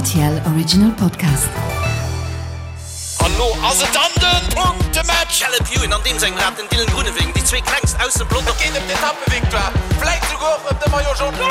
RTL Original Podcast. An lo ass et dann den Punktematch! Caleb Ewan an deem sengem Rad den Dylan Groenewegen, déi zwee klengst aus dem Pelotong. Et geet ëm d'Etappevictoire, vläit souguer och ëm de Maillot Jaune.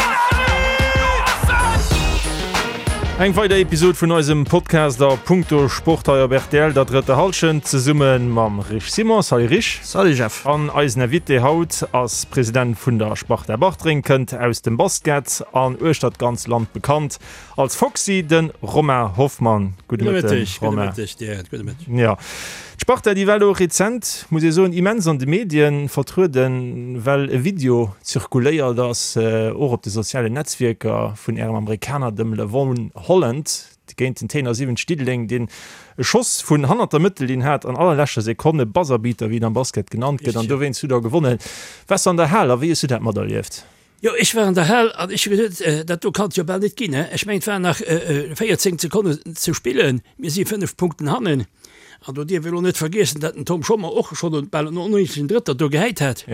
Eng weider Episod vun eisem Podcast a Punkto Sport hei op rtl, der drëtter Hallschent, zesumme mam Rich Simon. Salut Rich. Salut Jeff. An eisen Invité haut ass President vun der Sparta Bartreng, kënnt aus dem Basket an uechter d'ganz Land bekannt als Foxy, de Romain Hoffmann. Gudde Mëtteg, Romain. Gudde Mëtteg dir, gudde Mëtteg. Jo, d'Sparta, déi war elo rezent, muss ee soen, immens an de Medien vertrueden, well e Video zirkuléiert ass, och op de sozialen Netzwierker, vun ärem Amerikaner, dem Levon Holland, géint den Téiner 70 Diddeleng, deen e Schoss vun hannert der Mëttellinn hat an allerleschter Sekonn, e Buzzerbeater, wéi et am Basket genannt gëtt, an dowéinst hutt der gewonnen. Waars de an der Hal a wéi hues du dat materlieft? Jo, ech war an der Hal an ech hu geduet, dat do kann et jo bal net ginn. Ech mengen, et waren nach 14 Sekonnen ze spillen, mir si 5 Punkten hannen. An do dierf ee lo net vergiessen, datt den Tom Schommer och schonn bal en onnéidegen Drëtter do gehäit hat.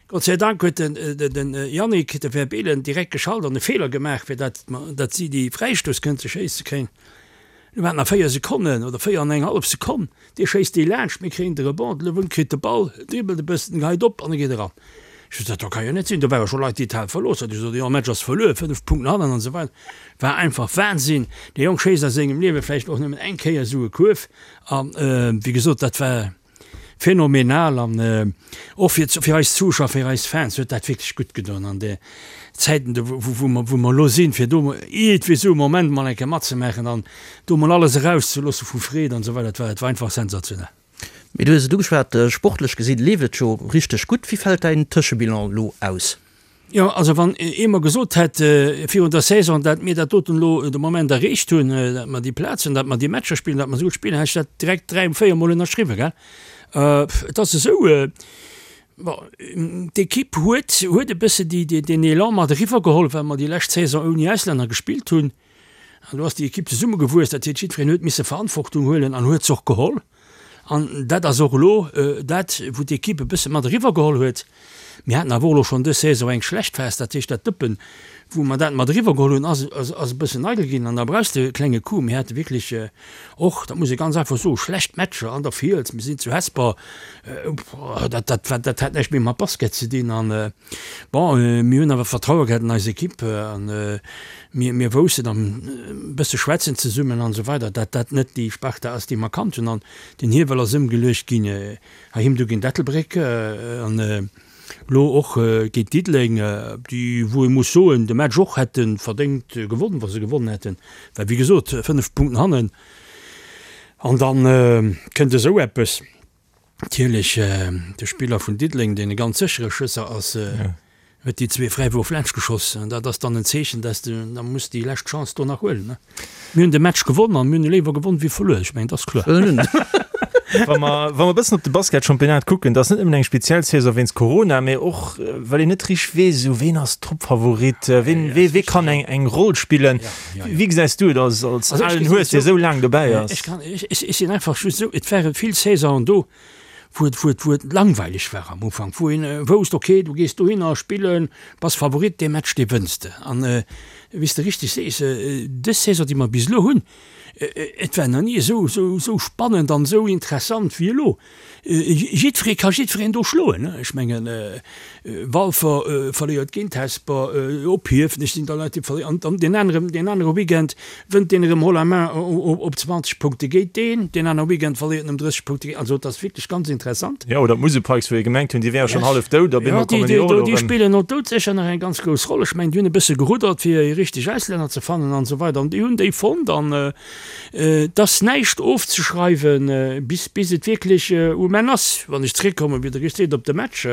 Gott sei Dank huet den Yannick de Verbeelen direkt geschalt an e Feeler gemaach, fir datt datt si déi Fräistouss kënnte schéisse kréien. Lo waren nach 4 Sekonnen oder 4 an eng hallef Sekonn. Dee schéisst déi laanscht, mir kréien de Rebond, de Lewin kritt de Ball, dribbelt e bëssen, geheit op an e geet eran. Ech sot, dat do ka jo net sinn. Do ware scho Leit, déi d'Hal verlooss haten. Ech sot, jo, Match ass verluer, 5 Punkten hannen an esou weider. War einfach Wahnsinn. Dee Jong schéisst a sengem Liewe vläicht och nëmmen eng Kéier esou e Kuerf. An, wéi gesot, dat war. Phänomenal an och fir fir eis Zuschauer, fir eis Fans huet dat wierklech gutt gedoen an de Zäiten do wou wou mer wou mer elo sinn, fir do iergendwéi esou e Moment mol eng Kéier matzemaachen an do mol alles erauszeloosse vu Freed an esou weider. Et war et war einfach sensationell. Mee du hues et ugeschwat, sportlech gesinn leeft et jo richteg gutt. Wéi fält däin Tëschebilan elo aus? Jo, also wann ee mer gesot hätt virun der Saison, dat mir dat doten elo de Moment erreecht hunn, dat mer déi Plaz hunn, dat mer déi Matcher spillen, dat mer esou gutt spillen, hätt ech dat direkt dräi, véier Mol ënnerschriwwen, gell. Et ass esou, bon, d'Ekipp huet, huet e bësse déi, deen Elan mat eriwwergeholl, well mer déi lescht Saison ouni Auslänner gespillt hunn. An do ass déi Ekipp zesummegewuess, dat heescht, jiddwereen huet misse Verantwortung huelen an huet se och geholl. An dat ass och elo dat, wou d'Ekipp e bësse mat eriwwergeholl huet. Mir haten awer och elo schonn dës Saison eng schlecht Phas, dat heescht dat Dëppen, wou mer dat mat eriwwergeholl hunn, ass ass e bëssen eidel ginn an da brauchs de e klenge Coup. Mir hate wierklech och, dat muss ee ganz einfach soen, schlecht Matcher an der Fiels, mir sinn zu Hesper, dat dat war dat hat näischt méi mat Basket ze dinn. An bon, mir hunn awer Vertraue gehat an eis Ekipp an Mir, mir woussten an e bësse schwätzen zesummen an esou weider, dat dat net déi Sparta ass, déi mer kannt hunn. An den Hiewel ass ëmgeluecht ginn heiheem du géint Ettelbréck an elo och géint Diddeleng, déi, wou ee muss soen, de Match och hätte verdéngt gewonnen, wa se gewonnen hätten, well wéi gesot 5 Punkten hannen an da kënnt esou eppes. Natierlech de Spiller vun Diddeleng, deen e ganz séchere Schësser ass, huet déi zwee Fräiwurf laanscht geschoss. An dat ass dann en Zeechen, dass de da muss déi lescht Chance do nach huelen. Mir hunn de Match gewonn an mir hunn e léiwer gewonn wéi verluer. Ech mengen, dat ass kloer. Wa mer, wa mer e bëssen op de Basketchampionnat kucken, dat ass net nëmmen eng speziell Saison wéinst Corona, mee och well een net richteg weess, esou ween ass Toppfavorit, ween, wee, wee kann eng, eng Roll spillen. Wéi gesäis du et als, als alen Hues, dee sou laang dobäi ass? Ech kann, ech, ech sinn einfach just esou, et ware vill Saisonen do, wou et, wou et, wou et langweileg war am Ufank, wou een wousst, okay, du gees dohinner spillen, bass Favorit, dee Match, dee wënns de. An wéi s de richteg sees, dës Saison, déi mer bis elo hunn, et war nach ni esou, esou, esou spannend an esou interessant wéi elo. Jiddweree ka jiddwereen do schloen. Ech mengen, Walfer verléiert géint Hesper, op Hiefenech sinn da Leit, déi verléieren. An deen aneren, deen anere Weekend wënnt deen erëm haut la main op 20 Punkte géint deen, deen anere Weekend verléiert en ëm 30 Punkte géint. Also et ass wierklech ganz interessant. Jo, oder d'Musel Pikes, wou ee gemengt hunn, déi wäre schonn hallef dout, op eemol kommen déi och elo erëm. Déi spillen och doudsécher nach eng ganz grouss Roll. Ech mengen, déi hunn e bësse geruddert, fir déi richteg Auslänner ze fannen an esou weider. An déi hunn déi fonnt an Et ass näischt ofzeschreiwen, bis bis et wierklech um Enn ass. Wann ech zeréckkommen, wéi Der richteg seet, op de Match,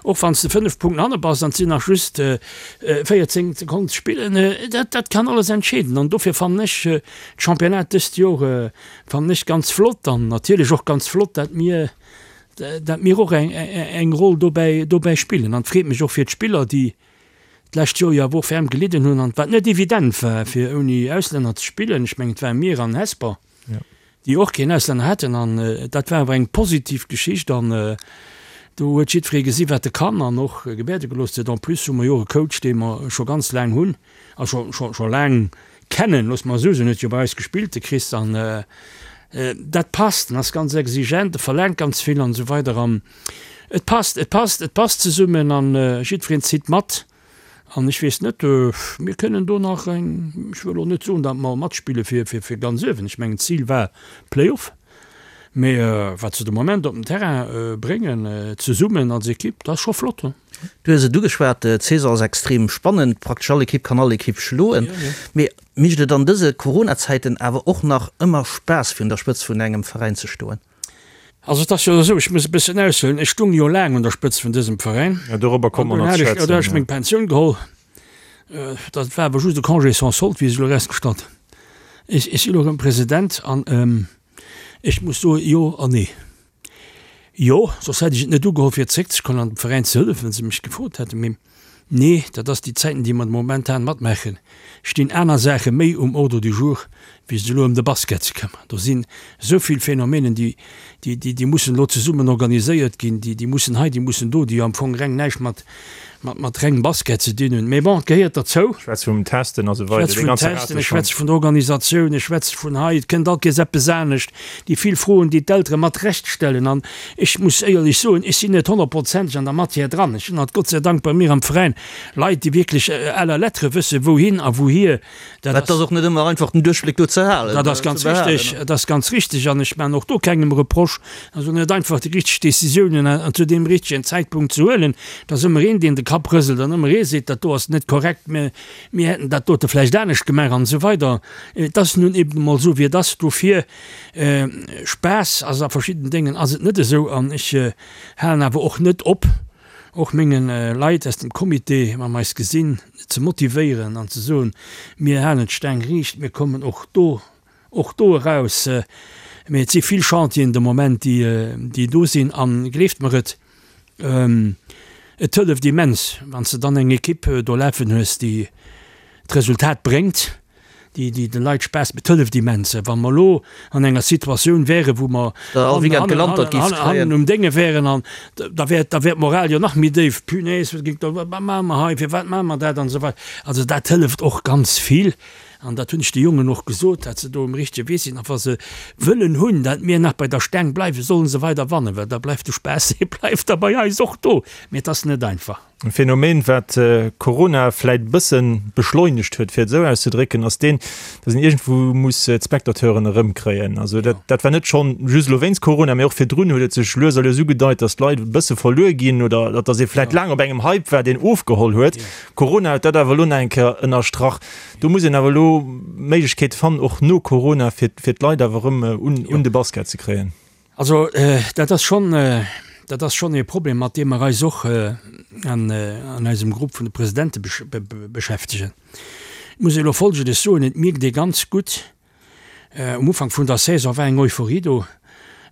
och wann s de 5 Punkten hanne bass an et sinn nach just 14 Sekonnen ze spillen, dat dat kann alles entscheeden. An dofir fannen ech d'Championnat dëst Joer fannen ech ganz flott an natierlech och ganz flott, dat mir dat mir och eng eng Roll dobäi dobäi spillen. An et freet mech och fir d'Spiller, déi d'lescht Joer jo awer och ferm gelidden hunn an wat net evident war fir ouni Auslänner ze spillen. Ech mengen et ware mir an Hesper, déi och keen Auslänner haten an dat war awer eng positiv Geschicht an do huet jiddweree gesi wat e kann an och gebäerde gelooss huet. En plus hu mer jo och e Coach dee mer scho ganz laang hunn a scho scho scho laang. kennen, loosse mer esou soen, huet jo bei eis gespillt, de Chris, an dat passt, en ass ganz exigent, e verlaangt ganz vill an esou weider an et passt, et passt, et passt zesummen an jiddwereen zitt mat an ech weess net, mir kënnen do nach eng, ech wëll elo net soen, datt mer matspille fir, fir, fir ganz uewen, ech mengen d'Zil war Play-off, mee wat se de Moment op den Terrain bréngen zesummen als Ekipp, dat ass scho flott. Du hues et ugeschwat, d'Saison ass extrem spannend, praktesch all Ekipp kann all Ekipp schloen. Mee mécht et an dëse Corona-Zäiten awer och nach ëmmer Spaass fir un der Spëtzt vun engem Veräin ze stoen? Also et ass jo esou, ech muss e bëssen aushuelen, ech stung jo laang un der Spëtzt vun dësem Veräin. Jo, dorobber komme mer nach ze schwätzen. An dunn hat ech meng Pensioun geholl. Dat war awer just e Congé sans solde, wéi sech elo erausgestallt. Ech si elo erëm President an ech muss soen, jo an nee. Jo, soss hätt ech et net ugeholl fir zréckzekommen an dem Veräin ze hëllefen, wann se mech gefrot hätten. Mee nee, dat ass déi Zäiten, déi mer momentan matmaachen, stinn aner Saache méi um Ordre du jour, wéi sech elo ëm de Basket ze këmmeren. Do sinn esou vill Phänomenen, déi, déi, déi mussen elo zesummen organiséiert ginn, déi, déi mussen hei, déi mussen do, déi jo am Fong reng näischt mat, mat, mat rengem Basket ze dinn hunn. Mee bon, et gehéiert derzou. Ech schwätze vum Testen a sou weider, dee ganze Rateschwanz. Ech schwätze vun der Organisatioun, ech schwätze vun hei, et kënnt all Kees eppes anescht, déi vill Froen, déi d'Eltere mat Recht stellen. An ech muss éierlech soen, ech sinn net honnertprozenteg an der Matière dran. Ech hunn alt Gott sei Dank bei mir am Veräin Leit, déi wierklech à la lettre wësse wouhin a wouhier. Dat ass och net ëmmer einfach, den Duerchbléck do ze halen. Dat ass ganz richtig, dat ass ganz richtig. An ech maachen och do kengem Reproche, also net einfach déi richteg Décisiounen an zu deem richtegen Zäitpunkt ze huelen. Et ass ëmmer een, deen de Kapp rëselt an ëmmer ee seet, dat do ass net korrekt, mir, mir hätten dat dote vläicht anescht gemaach an esou weider. Et ass nun eben emol esou, wéi et ass. Dofir, Spaass ass a verschidden Déngen ass et net esou. An ech halen awer och net op, och menge Leit aus dem Comité, wa mer eis gesinn, ze motivéieren an ze soen, mir halen d'Staang riicht, mir kommen och do, och do eraus. Mee et si vill Chantieren de Moment, déi, déi do sinn. A gleeft mer et, et hëlleft immens, wann s de dann eng Ekipp do lafen hues, déi d'Resultat bréngt. déi déi de Leit Spaass et hëlleft immens. Wa mer elo an enger Situatioun wären, wou mer hannen um Dénge wären an da wär da wär d'Moral jo nach méi déif, Punaise, wat géing da, wat maache mer hei, firwat maache mer dat an esou weider. Also dat hëlleft och ganz vill an dat hunn ech de Jongen och gesot, dat se do um richtege Wee sinn a wa se wëllen hunn, dat mir nach bei der Staang bleiwen, sollen se weider wannen, well da bleift de Spaass, dee bleift da bei eis och do. Mee et ass net einfach. E Phänomen, wat Corona vläit e bësse beschleunegt huet, fir et esou auszedrécken, ass deen, datt een iergendwou muss d'Spectateuren erëmkréien. Also dat, dat war net schonn just elo wéinst Corona, mee och virdrun huet et sech lues a lues ugedeit, datt d'Leit e bësse verluer ginn oder datt ee vläit laang op engem Hype war, deen ofgeholl huet. Corona huet dat awer elo nach eng Kéier ënnerstrach. Do muss een awer elo Méiglechkeete fannen, och no Corona, fir, fir d'Leit awer erëm un, un de Basket ze kréien. Also dat ass schonn, dat ass schonn ee Problem, mat deem mer eis och an eisem Grupp vun de Presidente beschäftegen. Et muss ee elo Folgendes soen, Et mierkt ee ganz gutt, um Ufank vun der Saison war eng Euphorie do,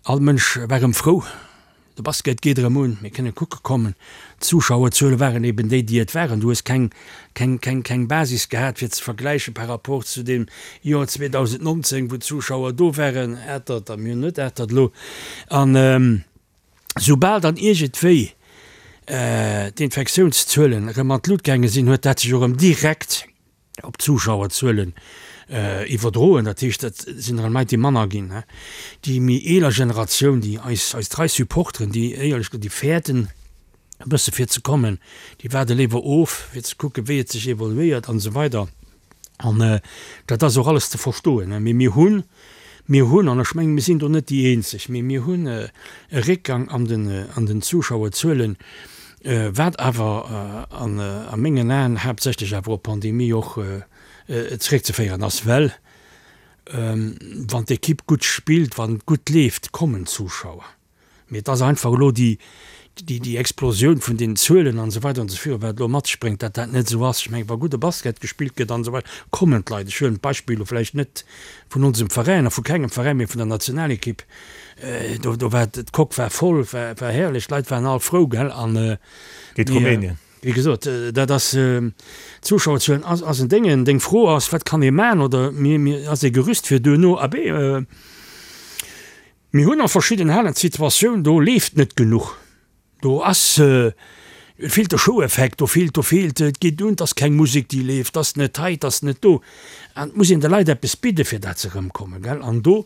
all Mënsch war erëm frou, de Basket geet erëm un, mir kënne kucke kommen. D'Zuschauerzuele waren eben déi, déi et waren. Du hues keng, keng, keng, keng Basis gehat, fir ze vergläiche par rapport zu deem Joer 2019, wou d'Zuschauer do waren, Atert, a mir hunn net Atert elo. An soubal dann iergendwéi d'Infektiounszuelen erëm an d'Lut gaange sinn, huet dat sech och erëm direkt op d'Zuschauerzuelen iwwerdroen. Dat heescht, et sinn erëm Leit, déi manner ginn. Déi méi eeler Generatioun, déi eis, eis trei Supporteren, déi éierlech gesot, déi fäerten e bësse fir ze kommen, déi waarde léiwer of, fir ze kucken, wéi et sech evoluéiert an esou weider. An dat ass och alles ze verstoen. Mee mir hunn, mir hunn, an ech mengen, mir sinn do net déi Eenzeg, mee mir hunn e Réckgang an den, an den Zuschauerzuelen, wat awer an a mengen Aen haaptsächlech awer op d'Pandemie och zeréckzeféieren ass, well wann d'Ekipp gutt spillt, wann et gutt leeft, kommen d'Zuschauer. Mee et ass einfach elo déi, déi, déi Explosioun vun den Zuelen an esou weider an esou virun, wat elo mat sech bréngt, datt dat net esou ass. Ech mengen, wa gudde Basket gespillt gëtt an esou weider, kommen d'Leit. Ech huelen d'Beispill elo vläicht net vun onsem Veräin a vu kengem Veräin, mee vun der Nationalekipp. Do, do war d'Coque war voll, war, war herrlech, d'Leit waren all frou, gell, an. Géint Rumänien. Wéi gesot, dat ass, d'Zuschauerzuelen ass, ass en Déngen. Deng Fro ass, wat kann ee maachen oder mir, mir, ass ee Gerüst fir duerno? Abee, Mir hunn a verschidden Halen d'Situatioun, do leeft net genuch. Do ass. Et feelt de Show-Effekt, do feelt, do feelt, et geet un, 't ass keng Musek déi leeft, 't ass net hei, 't ass net do. An et muss een de Leit eppes bidde fir dat se erëmkommen, gell. An do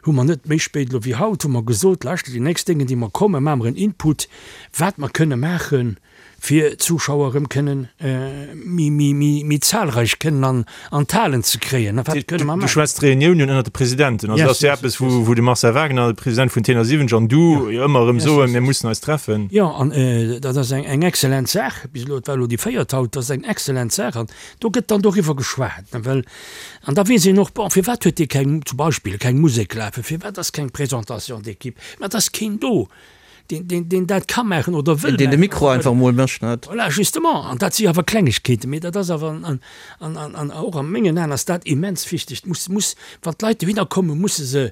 hu mer net méi spéit elo wéi haut hu mer gesot, lauschtert, déi nächst Déngen déi mer kommen, maache mer en Input, wat mer kënne maachen, fir d'Zuschauer erëm kënnen méi, méi, méi, méi zahlreich kënnen an, an d'Halen ze kréien. Wat kënne mer maachen? Du schwätz d'Reuniounen ënnert de Presidenten. Also dat ass jo eppes, wou, wou de Marcel Wagner, de President vun Tenor 70, an du jo ëmmer erëm soen, mir mussen eis treffen. Jo, an dat ass eng, eng excellent Saach. Bis elo, et war elo déi véiert haut, dat ass eng excellent Saach. An do gëtt dann doriwwer geschwat, ne, well, an da weess een och, bon, firwat huet dee keng, zum Beispill, keng Musek lafen, firwat ass keng Présentation d'équipe, mä et ass keen do. deen, deen, deen dat ka maachen oder wëll Deen de Mikro einfach emol mécht, net? Voilà, justement. An dat si awer Klengegkeeten, mee dat ass awer, an, an, an, an och a mengen Aen ass dat immens wichteg. Et muss, muss, wann d'Leit dohinner kommen, musse se,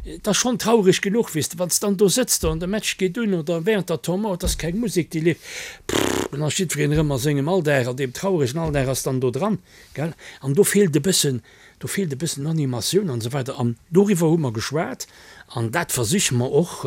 et ass schonn traureg genuch, weess de, wann s de dann do sëtz do an de Match geet un oder während der Temps mort, et ass keng Musek, déi leeft, pff, dann ass jiddwereen erëm a sengem Alldag, an deem trauregen Alldag ass dann do dran, gell. An do feelt e bëssen, Do feelt e bëssen Animatioun an esou weider. An doriwwer hu mer geschwat an dat versiche mer och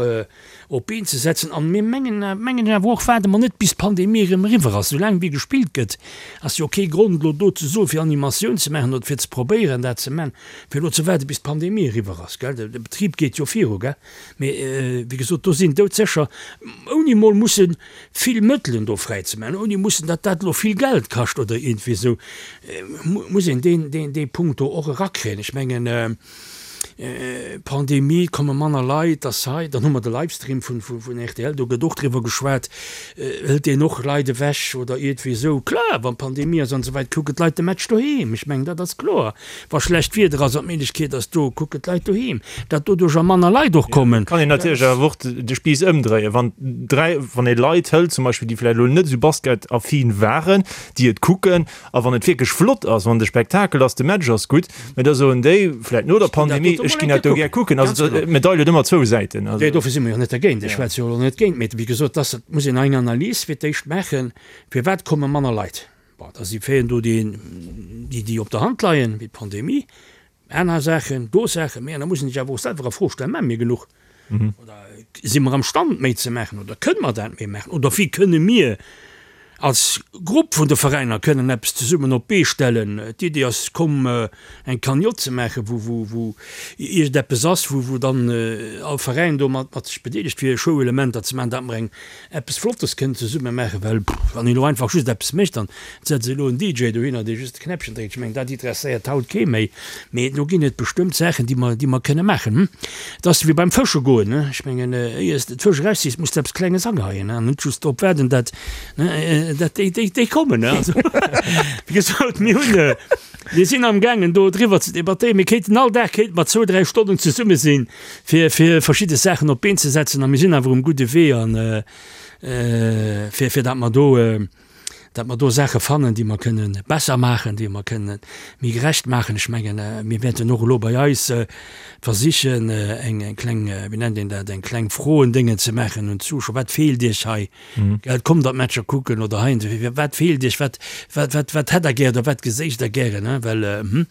op d'Been ze setzen. An mir mengen, mengen ech awer och, waarde mer net bis d'Pandemie erëm eriwwer ass. Soulaang wéi gespillt gëtt, ass jo kee Grond elo do ze soen, fir Animatioun ze maachen oder fir ze probéieren dat ze maachen, fir elo ze waarde bis d'Pandemie eriwwer ass, gell. De Betrib geet jo viru, gell. Mee wéi gesot, do sinn doudsécher, ouni emol mussen vill Mëttelen do fräi ze maachen, ouni mussen, datt dat elo vill Geld kascht oder iergendwéi esou, muss een deen, deen, dee Punkt do och erakréien. Ech mengen, Pandemie, et komme manner Leit, ass hei, dann hu mer de Livestream vun, vun, vun rtl, do gëtt och driwwer geschwat, hëlt deen och Leit ewech oder iergendwéi esou. Kloer, wann Pandemie ass an esou weider, kucken d'Leit de Match doheem, ech mengen, dat ass kloer. Wa schlecht Wieder ass an d'Méiglechkeet ass do, kucken d'Leit doheem, datt doduercher manner Leit och kommen. Kann een natierlech awer och de Spiiss ëmdréien, wann 3, wann ee Leit hëlt zum Beispill, déi vläicht elo net esou basketaffin waren, déi et kucken, a wann et wierklech flott ass, wann de Spektakel ass, de Match ass gutt, mä da soen déi vläicht no der Pandemie, ech ginn dat do gär kucken. Also d'Medail huet ëmmer zwou Säiten. Nee, dofir si mer jo net dergéint. Ech schwätze jo elo net géint, mee wéi gesot, dass, et muss een eng Analys fir d'éischt maachen, firwat komme manner Leit. Bon, da si Faiten do, déi, déi op der Hand leien, wéi d'Pandemie, aner Saachen, do Saachen, mä da muss een sech awer och selwer a Fro stellen, Maache mir genuch? Oder si mer am Stand, méi ze maachen? Oder kënne mer dat méi maachen? Oder wéi kënne mir als Grupp vun de Veräiner kënnen eppes zesummen op d'Bee stellen? D'Idee ass komm, eng Cagnotte ze maachen, wou, wou, wou iergendeppes ass, wou, wou dann all Veräin do mat, mat sech bedeelegt, fir Showelementer ze maachen, dat mer eng eppes Flottes kënnen zesumme maachen, well wann een elo einfach just eppes mécht an et setzt elo en DJ dohinner, dee just de Knäppchen dréckt, ech mengen, dat interesséiert haut kee méi. Mee do ginn et bestëmmt Saachen, déi mer, déi mer kënne maachen. Et ass wéi beim Fësche goen, ne, ech mengen, éier s de d'Fësch erausziss, muss de eppes Klenges ageheien, ne, an net just drop waarden, dat, ne, dat déi, déi, déi kommen, ne. Also, wéi gesot, mir hunn, mir sinn amgaangen do driwwer ze debattéieren. Mir kéinten all Dag kéinte mer zwou, dräi Stonnen zesumme sinn, fir fir verschidde Saachen op d'Been ze setzen a mir sinn awer um gudde Wee an fir fir dat mer do dat mer do Saache fannen, déi mer kënnen besser maachen, déi mer kënnen méi gerecht maachen. Ech mengen, mir wäerten och elo bei eis versichen eng eng kleng, wéi nennt een dat, eng kleng Froendéngen ze maachen un d'Zuschauer, Wat feelt Iech hei? Gell, kommt der d'Matcher kucken oder hei, wat feelt Iech, wat wat wat wat hätt Der gär oder wat geséicht Der gären, well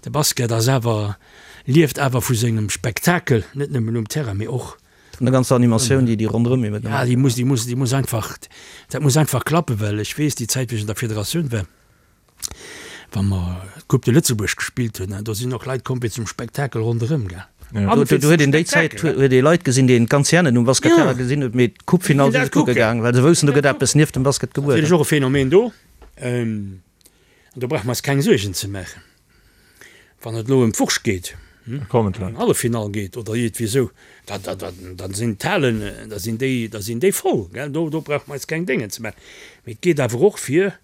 de Basket ass awer lieft awer vu sengem Spektakel, net nëmmen um Terrain, mee och. Vun der ganzer Animatioun, déi déi ronderëm eben. Ja, déi muss, déi muss, déi muss einfach, dat muss einfach klappen, well ech weess, déi Zäit, wéi ech an der Federatioun war, wa mer d'Coupe de Lëtzebuerg gespillt hunn, do sinn och Leit komm fir zum Spektakel ronderëm, gell. An fir do huet een déi Zäit huet ee Leit gesinn, déi een d'ganz Jahr net um Basketterrain gesinn huet, mee d'Coupe-Finall si se kucke gaang, well se woussten, do gëtt eppes nieft dem Basket gebueden. Natierlech och e Phänomen do. An do brauche mer eis keng Suergen ze maachen, wann et elo ëm d'Wurscht geet, ëm Halleffinall geet oder iergendwéi esou, da, da, da, da sinn d'Halen, da sinn déi, da sinn déi voll, gell. Do, do brauche mer eis keng Déngen ze maachen. Mee et geet awer och fir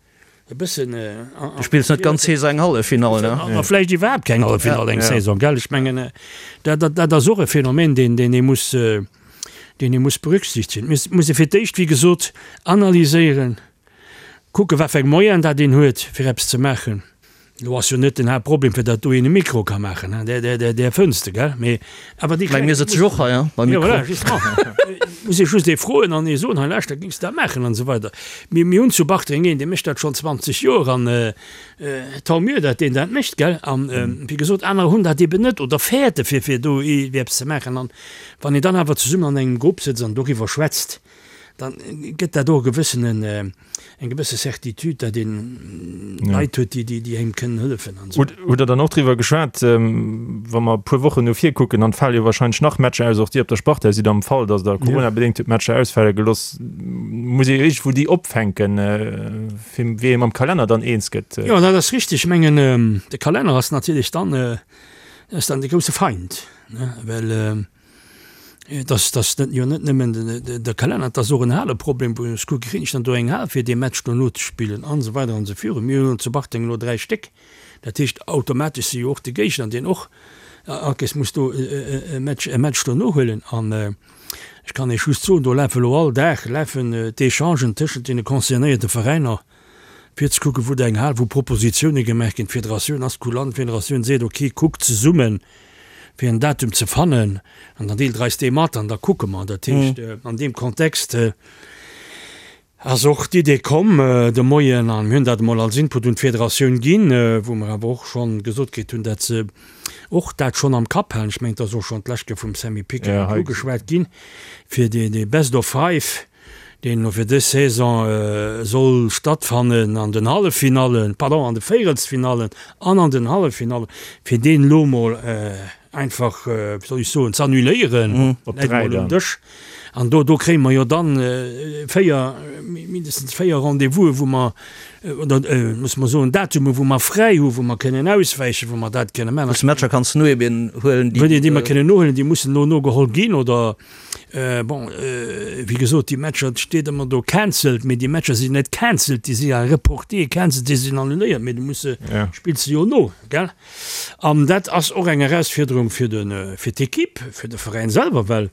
e bëssen an. Du spills net d'ganz Saison eng Halleffinall, ne? A vläicht iwwerhaapt keng Halleffinall eng Saison, gell. Ech mengen, dat, dat, dat ass och e Phänomen, deen, deen ee muss, deen ee muss berücksichtigen. Et muss ee fir d'éischt, wéi gesot, analyséieren, Kucken, wat fir eng Moyenen dat een huet, fir eppes ze maachen. Elo ass jo net den Haaptproblem, fir datt do een e Mikro ka maachen, hein, där, där, där fënns de, gell? Mee awer déi kleng. Mir sëtze jo och hei, hein, beim Mikro. Jo, voilà, justement. Muss ee just ee froen an ee soen, hei lauschter, géings de dat maachen an esou weider. Mir, mir hunn zu Bartreng een, dee mécht dat schonn 20 Joer an tant mieux, datt deen dat mécht, gell? An, wéi gesot, anerer hunn dat eeben net oder fäerte fir, fir do eppes ze maachen. An wann een dann awer zesummen an engem Grupp sëtzt an doriwwer schwätzt,. Dann gëtt dat och e gewëssenen, eng gewësse Certitude, datt een Leit huet, déi, déi engem kënnen hëllefen an esou. Hutt Der dann och driwwer geschwat, wa mer e puer Wochen no vir kucken, dann fale jo wahrscheinlech nach Matcher aus, och Dir op der Sparta sidd am Fall, datt Der coronabedéngt hutt Matcher ausfale gelooss, muss ee jo iergendwou déi opfänken, fir wéi ee mam Kalenner dann eens gëtt. Jo, dat ass richtig. Ech mengen, de Kalenner ass natierlech dann, ass dann de grousse Feind, ne, well, Et ass, et ass net, jo net nëmmen de Kalenner, et ass och en Haleproblem, wou ech kucke, kréien ech dann do eng Hal fir dee Match dono ze spillen an esou weider an esou virun. Mir hunn zu Bartreng elo 3 Stéck, dat heescht automatesch si jo och de Géigner, deen och all Kéiers muss do e Match, e Match dono huelen. An ech kann Iech just soen, do lafe elo all Dag lafen d'Echangen tëschent deene concernéierte Veräiner, fir ze kucken, wou eng Hal, wou Propositioune gemaach ginn. D'Federatioun ass kulant, d'Federatioun seet, ok, kuckt zesummen, fir en Datum ze fannen an dann deelt Der eis dee mat an da kucke mer. Dat heescht, an deem Kontext ass och d'Idee komm de Moien, a mir hunn dat emol als Input un d'Federatioun ginn, wou mer awer och schonn gesot kritt hunn, datt se och dat schonn am Kapp halen. Ech mengen, et ass och schonn d'lescht Kéier vum Sammy Picker ugeschwat ginn, fir dee Best of Five, deen elo fir dës Saison soll stattfannen an den Halleffinallen, pardon, an de Véierelsfinallen an an den Halleffinallen, fir deen elo mol einfach, wéi soll ech soen, z'annuléieren, läit emol um Dësch. An do, do kréie mer jo dann 4, mindestens 4 Rendez-vous'e wou mer, oder musse mer soen, Datume wou mer fräi hu wou mer kënnen auswäichen, wou mer dat kënne maachen. Wou s Matcher kanns nohuelen, déi. Déi mer kënnen nohuelen, déi mussen elo nogeholl ginn, oder? Bon, wéi gesot, déi Matcher, et steet ëmmer do cancelled, mee déi Matcher sinn net cancelled, déi si ja reporté, cancelled, déi sinn annuléiert, mee du muss se, spills se jo no, gell? An dat ass och eng Erausfuerderung fir de, fir d'Equipe, fir de Veräin selwer, well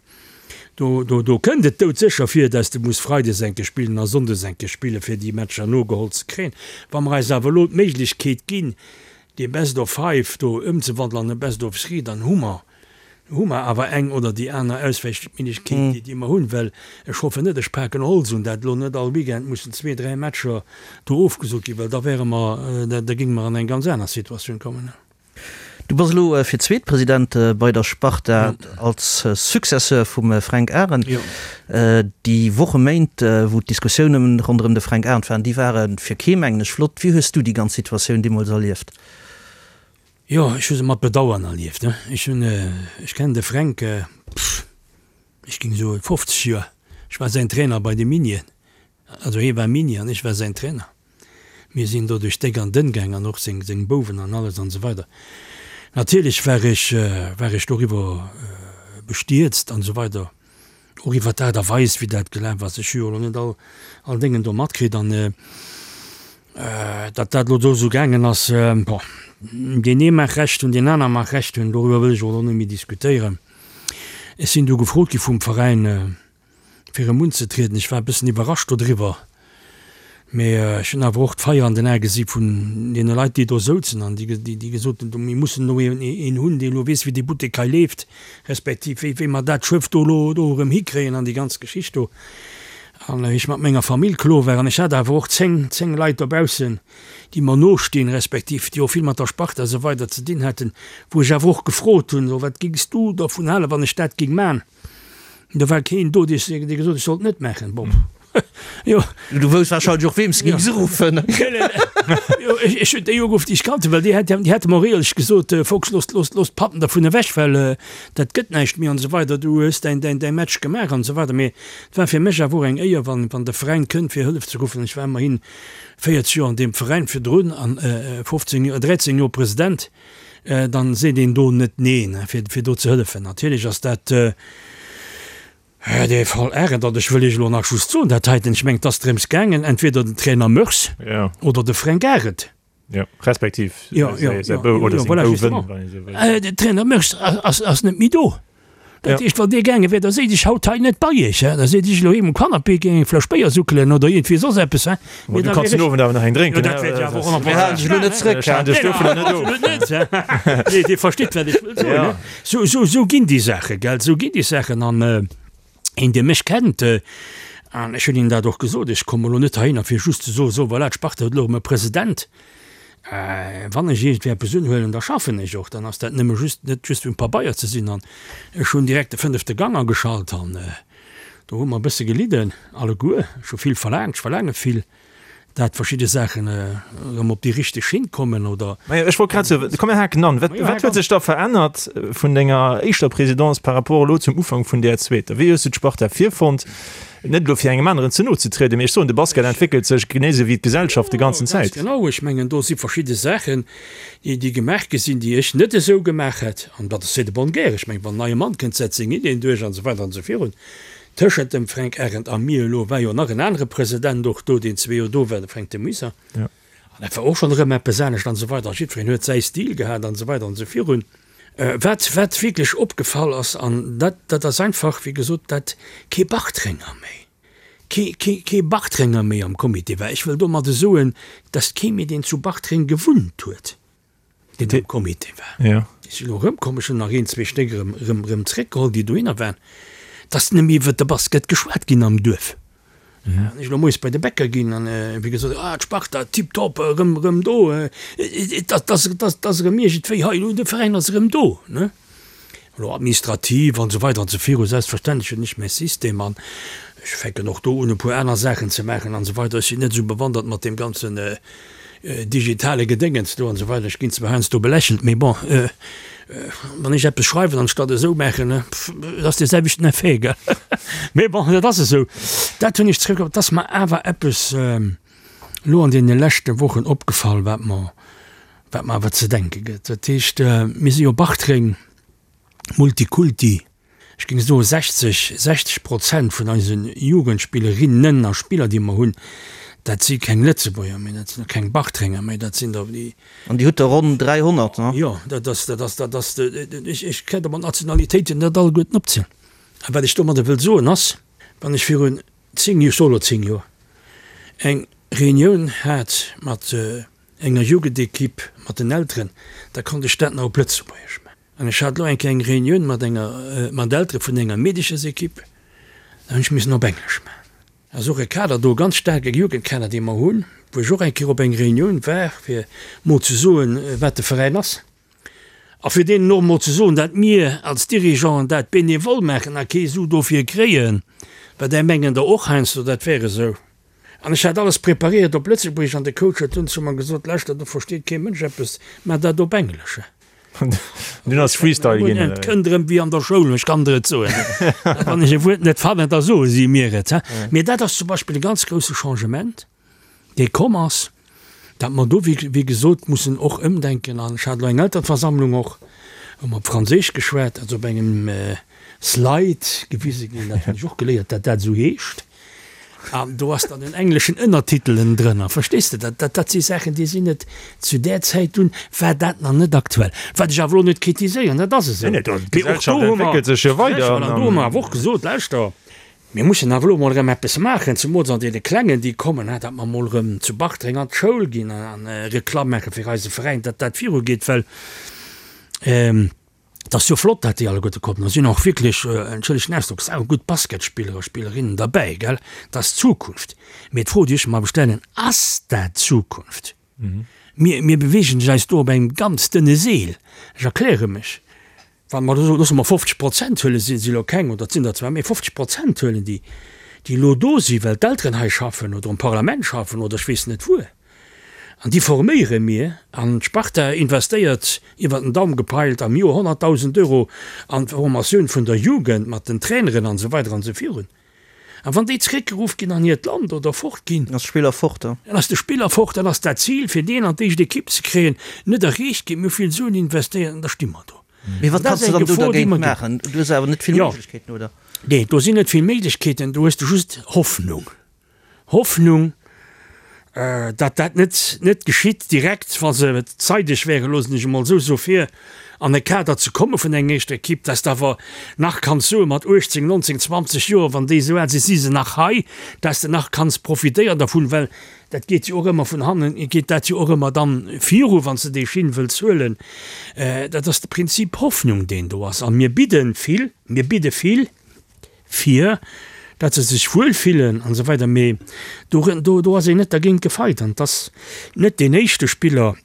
do, do, do kënnt et doudsécher vir, dass de muss freides eng Kéier spillen a sonndes eng Kéier spillen, fir déi Matcher nogeholl ze kréien. Wa mer eis awer elo d'Méiglechkeet ginn, dee Best of Five do ëmzewandelen an e Best of Three, dann hu mer Hu mer awer eng oder déi aner Auswäichméiglechkeet, déi mer hunn, well ech hoffen net, ech paken Holz un, dat elo net all Weekend mussen zwee, dräi Matcher do ofgesot ginn, well da wäre mer, da géinge mer an eng ganz aner Situatioun kommen. Du bass elo fir d'zweet President bei der Sparta als Successeur vum Fränk Arendt. Déi Woche, Méint, wou d'Diskussioune ronderëm de Fränk Arendt waren, déi ware fir kee, mengen ech, flott. Wéi hues du déi ganz Situatioun deemools erlieft? Jo, ech hu se mat Bedauern erlieft. Ech hunn, ech kennen de Fränk, pff, ech géing soen 50 Joer. Ech war säin Trainer bei de Minien. Also hie war Mini an ech war säin Trainer. Mir sinn do duerch déck an dënn gaang an och seng, seng Bouwen an alles an esou weider. Natierlech war ech, war ech doriwwer bestierzt an esou weider, och iwwer d'Aart a Weis wéi dat gelaf ass. Ech hu jo elo net all, all Déngen do matkritt an, Datt dat elo do esou gaangen ass, bon, deen ee mag Recht hunn, deen aner mag Recht hunn, doriwwer wëll ech och elo net méi diskutéieren. Ech sinn du gefrot gi vum Veräin, fir erëm unzetrieden. Ech war e bëssen iwwerrascht dodriwwer, mee ech hunn awer och d'Feier an den Ae gesi vun deene Leit, déi do souzen an déi, déi gesot hunn, mir mussen elo een hunn, dee elo weess, wéi dee Buttek hei leeft, respektiv wéi, wéi mer dat Schëff do elo do erëm hikréien an déi ganz Geschicht do. An wéi ech mat menger Famill klo war, an ech hat awer och 10, 10 Leit dobaussen, déi mer nostinn, respektiv déi och vill mat der Sparta a sou weider ze dinn haten, wou ech awer och gefrot hunn, So, wat géings du dervun halen, wann ech dat géing man? Do war keen do, dee gesot huet, ech sollt et net maachen. Bon, jo. Du wousst warscheinlech och, weem s de géings uruffen. Jo, ech hunn déi ugeruff, déi ech kannt hunn, well déi hätte mer och éierlech gesot, Fox, looss, looss, looss d'Patten dervun ewech, well dat gëtt näischt méi an esou weider, du hues däin, däin, däi Match gemaach an esou weider. Mee Et war fir mech awer och eng Éier, wann wann de Veräin kënnt fir Hëllef ze ruffen. Ech war ëmmerhin 40 Joer an deem Veräin virdrun an 15 Joer, 13 Joer President. Dann seet een do net neen, fir fir do ze hëllefen. Natierlech ass dat dee Fall Arendt, an ech wëll Iech elo nach just soen, dat heiten, ech mengen, et ass drëms gaangen, entweder den Trainer Meurs oder de Fränk Arendt. Ja, respektiv ja, ja, ja, Bou, oder ja, voilà, Bouwen, wann ee sou wëll. Den Trainer Meurs ass, ass net méi do. Dat heescht, wann dee gaange wär, da séit ech haut hei net bei iech, hè. Da séit ech elo heem um Canapé, géing eng Fläsch Béier suckelen oder iergendwéi soss eppes, hè. Mee du kanns den Owend awer nach eng drénken, Jo, dat wäert jo awer och nach Mir halen dech elo net zréck, hè. Ech halen dech dovunner net of. Absolut net, hè. Nee, Dir verstitt, wat ech wëll soen, hè. Sou, sou, sou ginn déi Saachen, gell, sou ginn déi Saachen. An Een, dee mech kennt, an ech hunn him dat och gesot, ech komme lo net heihinner fir just ze soen, so voilà, d'Sparta huet elo erëm e President. Wann ech iergendwéi eppes unhuelen, da schaffen ech och, dann ass dat nëmme just net just um Pabeier ze sinn. An ech hunn direkt de fënnefte Gang ageschalt an. Do hu mer e bësse gelidden alleguer. Ech hu vill verlaangt, ech verlaange vill, dat verschidde Saachen erëm op déi richteg Schinn kommen oder. Majo, ech wollt grad soen, komm mir haken an. Wat, wat huet sech da verännert vun denger éischter Présidence par rapport elo zum Ufank vun där zweeter? Wéi hues du d'Sparta virfonnt? Net elo fir engem aneren ze no ze trieden, mee ech soen, de Basket entwéckelt sech genee esou wéi d'Gesellschaft de ganzen Zäit. Ganz genau, ech mengen do si verschidde Saachen, déi gemaach gi sinn, déi ech net esou gemaach hätt, an dat ass c'est de bonne guerre. Ech mengen, wann en neie Mann kënnt, setzt seng Ideen duerch an esou weider an esou virun. Tëschent dem Fränk Arendt a mir elo war jo nach en anere President och do, deen zwee Joer do war, de Fränk de Muyser. An dat war och schonn erëm eppes anescht an esou weider. A jiddwereen huet säi Stil gehat an esou weider an esou virun. Wat, wat wierklech opgefall ass, an dat, dat ass einfach, wéi gesot, dat kee Bartrenger méi, kee, kee, kee Bartrenger méi am Comité war. Ech wëll domadde soen, dass kee méi, deen zu Bartreng gewunnt huet, deen am Comité war. Ja. Déi sinn elo erëmkomm, ech hunn nach een, zwee Stéck erëm, erëm, erëm zréckgeholl, déi dohinner waren. Dass net méi iwwert de Basket geschwat ginn am Duerf. Wann ech elo moies bei de Bäcker ginn an wéi gesot, ah d'Sparta tiptop, erëm, erëm do, et ass, et ass erëm iergendwéi hei, elo de Veräin ass erëm do, ne. Elo administrativ an esou weider an esou viru, selbstverständlech hunn ech mäi System an ech fänken och do un e puer aner Saachen ze maachen an esou weider. Ech sinn net esou bewandert mat deem ganzen digitale Gedéngens do an esou weider. Ech ginn zwar heiansdo belächelt, mee bon, wann ech eppes schreiwen anstatt esou maachen, et ass dee selwechten Effet, gell. Mee bon, dat ass esou. Dat hunn ech zréck. Et ass mer awer eppes elo an deene leschte Wochen opgefall, wat mer, wat mer awer ze denke gëtt. Dat heescht, mir si jo Bartreng, Multikulti. Ech géing soen, 60, 60 Prozent vun eise Jugendspillerinnen a Spiller, déi mer hunn, dat si keng Lëtzebuerger méi, dat sinn och keng Bartrenger méi, dat sinn der déi. An Dir hutt der ronn 300, ne? Jo, dat ass, dat ass, dat ass, ech, ech kéint der mat Nationalitéiten net alleguerten opzielen. A wat ech domadder wëll soen ass, wann ech virun 10, ech soe lo 10 Joer, eng Reunioun hat mat enger Jugendequipe, mat den Elteren, da konnt ech dat nach op Lëtzebuergesch maachen. An ech hat elo eng kleng Reunioun mat enger, mat Eltere vun enger Meedechesequipe, da hunn ech missen op Englesch maachen. Ass och e Kader do, e ganz staarke Jugendkader, dee mer hunn, wou ech och eng Kéier op eng Reunioun war, fir mol ze soen, wat de Veräin ass. A fir deenen och mol ze soen, dat mir als Dirigeanten dat bénévol maachen a kee Su dofir kréien, well där mengen der och heiansdo, dat wär esou. An ech hat alles preparéiert op Lëtzebuergesch an de Coach huet dunn zu mer gesot, Lauschter, do versteet kee Mënsch eppes, maach dat op Englesch. Dunn ass Freestyle ginn, oder? Et kënnt erëm wéi an der Schoul, ech kann der et soen. Wann ech e Wuert net fannen, da soe si mir et. Mee dat ass zum Beispill e ganz grousse Changement, dee komm ass, dat mer do, wéi gesot, mussen och ëmdenken. An ech hat elo eng Eltereversammlung och, hu mer op Franséisch geschwat, also op engem Slide gewise ginn, dat hunn ech och geléiert, dat dat esou heescht. An do ass dann en engleschen Ënnertitel ënnendrënner, verstees de? Dat, dat, dat si Saachen, déi sinn net zu där Zäit dunn war dat nach net aktuell. Wat ech awer elo net kritiséieren, dat ass esou. Nee, nee, d'Gesellschaft entwéckelt sech jo weider. An do hu mer awer och gesot, Lauschter, mir mussen awer elo mol erëm eppes maachen, zemools an deene Klengen, déi kommen, dat mer mol erëm zu Bartreng an d'Schoul ginn an Reklamm maache fir eise Veräin, datt dat virugeet, well Et ass jo flott, dat déi alleguerte kommen. Do sinn och wierklech, entschëllegt den Ausdrock, saugutt Basketspiller a Spillerinnen derbäi, gell. Dat ass d'Zukunft. Mee d'Fro, déi ech mer awer stellen, Ass dat d'Zukunft? Mir, mir beweegen eis do op engem ganz dënne Seel. Ech erkläre mech. Wa mer elo, loosse mer 50 Prozent huelen, si si elo keng, oder et sinn der zwar méi, 50 Prozent huelen, déi, déi elo do sinn, well d'Elteren hei schaffen oder um Parlament schaffen oder ech weess net wuer. An déi forméiere mir. An d'Sparta investéiert, iwwer den Daum gepeilt, am Joer 100.000 Euro an d'Formatioun vun der Jugend mat den Traineren an esou weider an esou virun. A wann déi zeréckgeruff ginn an hiert Land oder fort ginn, Dann ass de Spiller fort. Dann ass de Spiller fort, dann ass dat Zil, fir deen an d'éischt Ekipp ze kréien, net erreecht ginn. Mir hu vill Suen investéiert an da sti mer do. Mee wat kanns de dann do dergéint maachen? Du hues awer net vill Méiglechkeeten, oder? Nee, do sinn net vill Méiglechkeeten. Do hues de just Hoffnung. Hoffnung, datt dat net net geschitt direkt, wa se zeideg wären, loossen ech emol esou soe fir an e Kader ze komme vun enger éischter Ekipp, datt de awer nach kanns soe mat 18, 19, 20 Joer, wann déi esou al sinn, si se nach hei, datt s de nach kanns profitéieren dervun, well dat geet jo och ëmmer vun hannen, geet dat jo och ëmmer dann viru wann s de déi Schinn wëlls huelen. Dat ass de Prinzip Hoffnung, deen do ass. A mir bidde vill, mir bidde vill. fir dat se sech wuel fillen an esou weider, mee do do do ass een net dergéint gefeit an et ass net deen éischte Spiller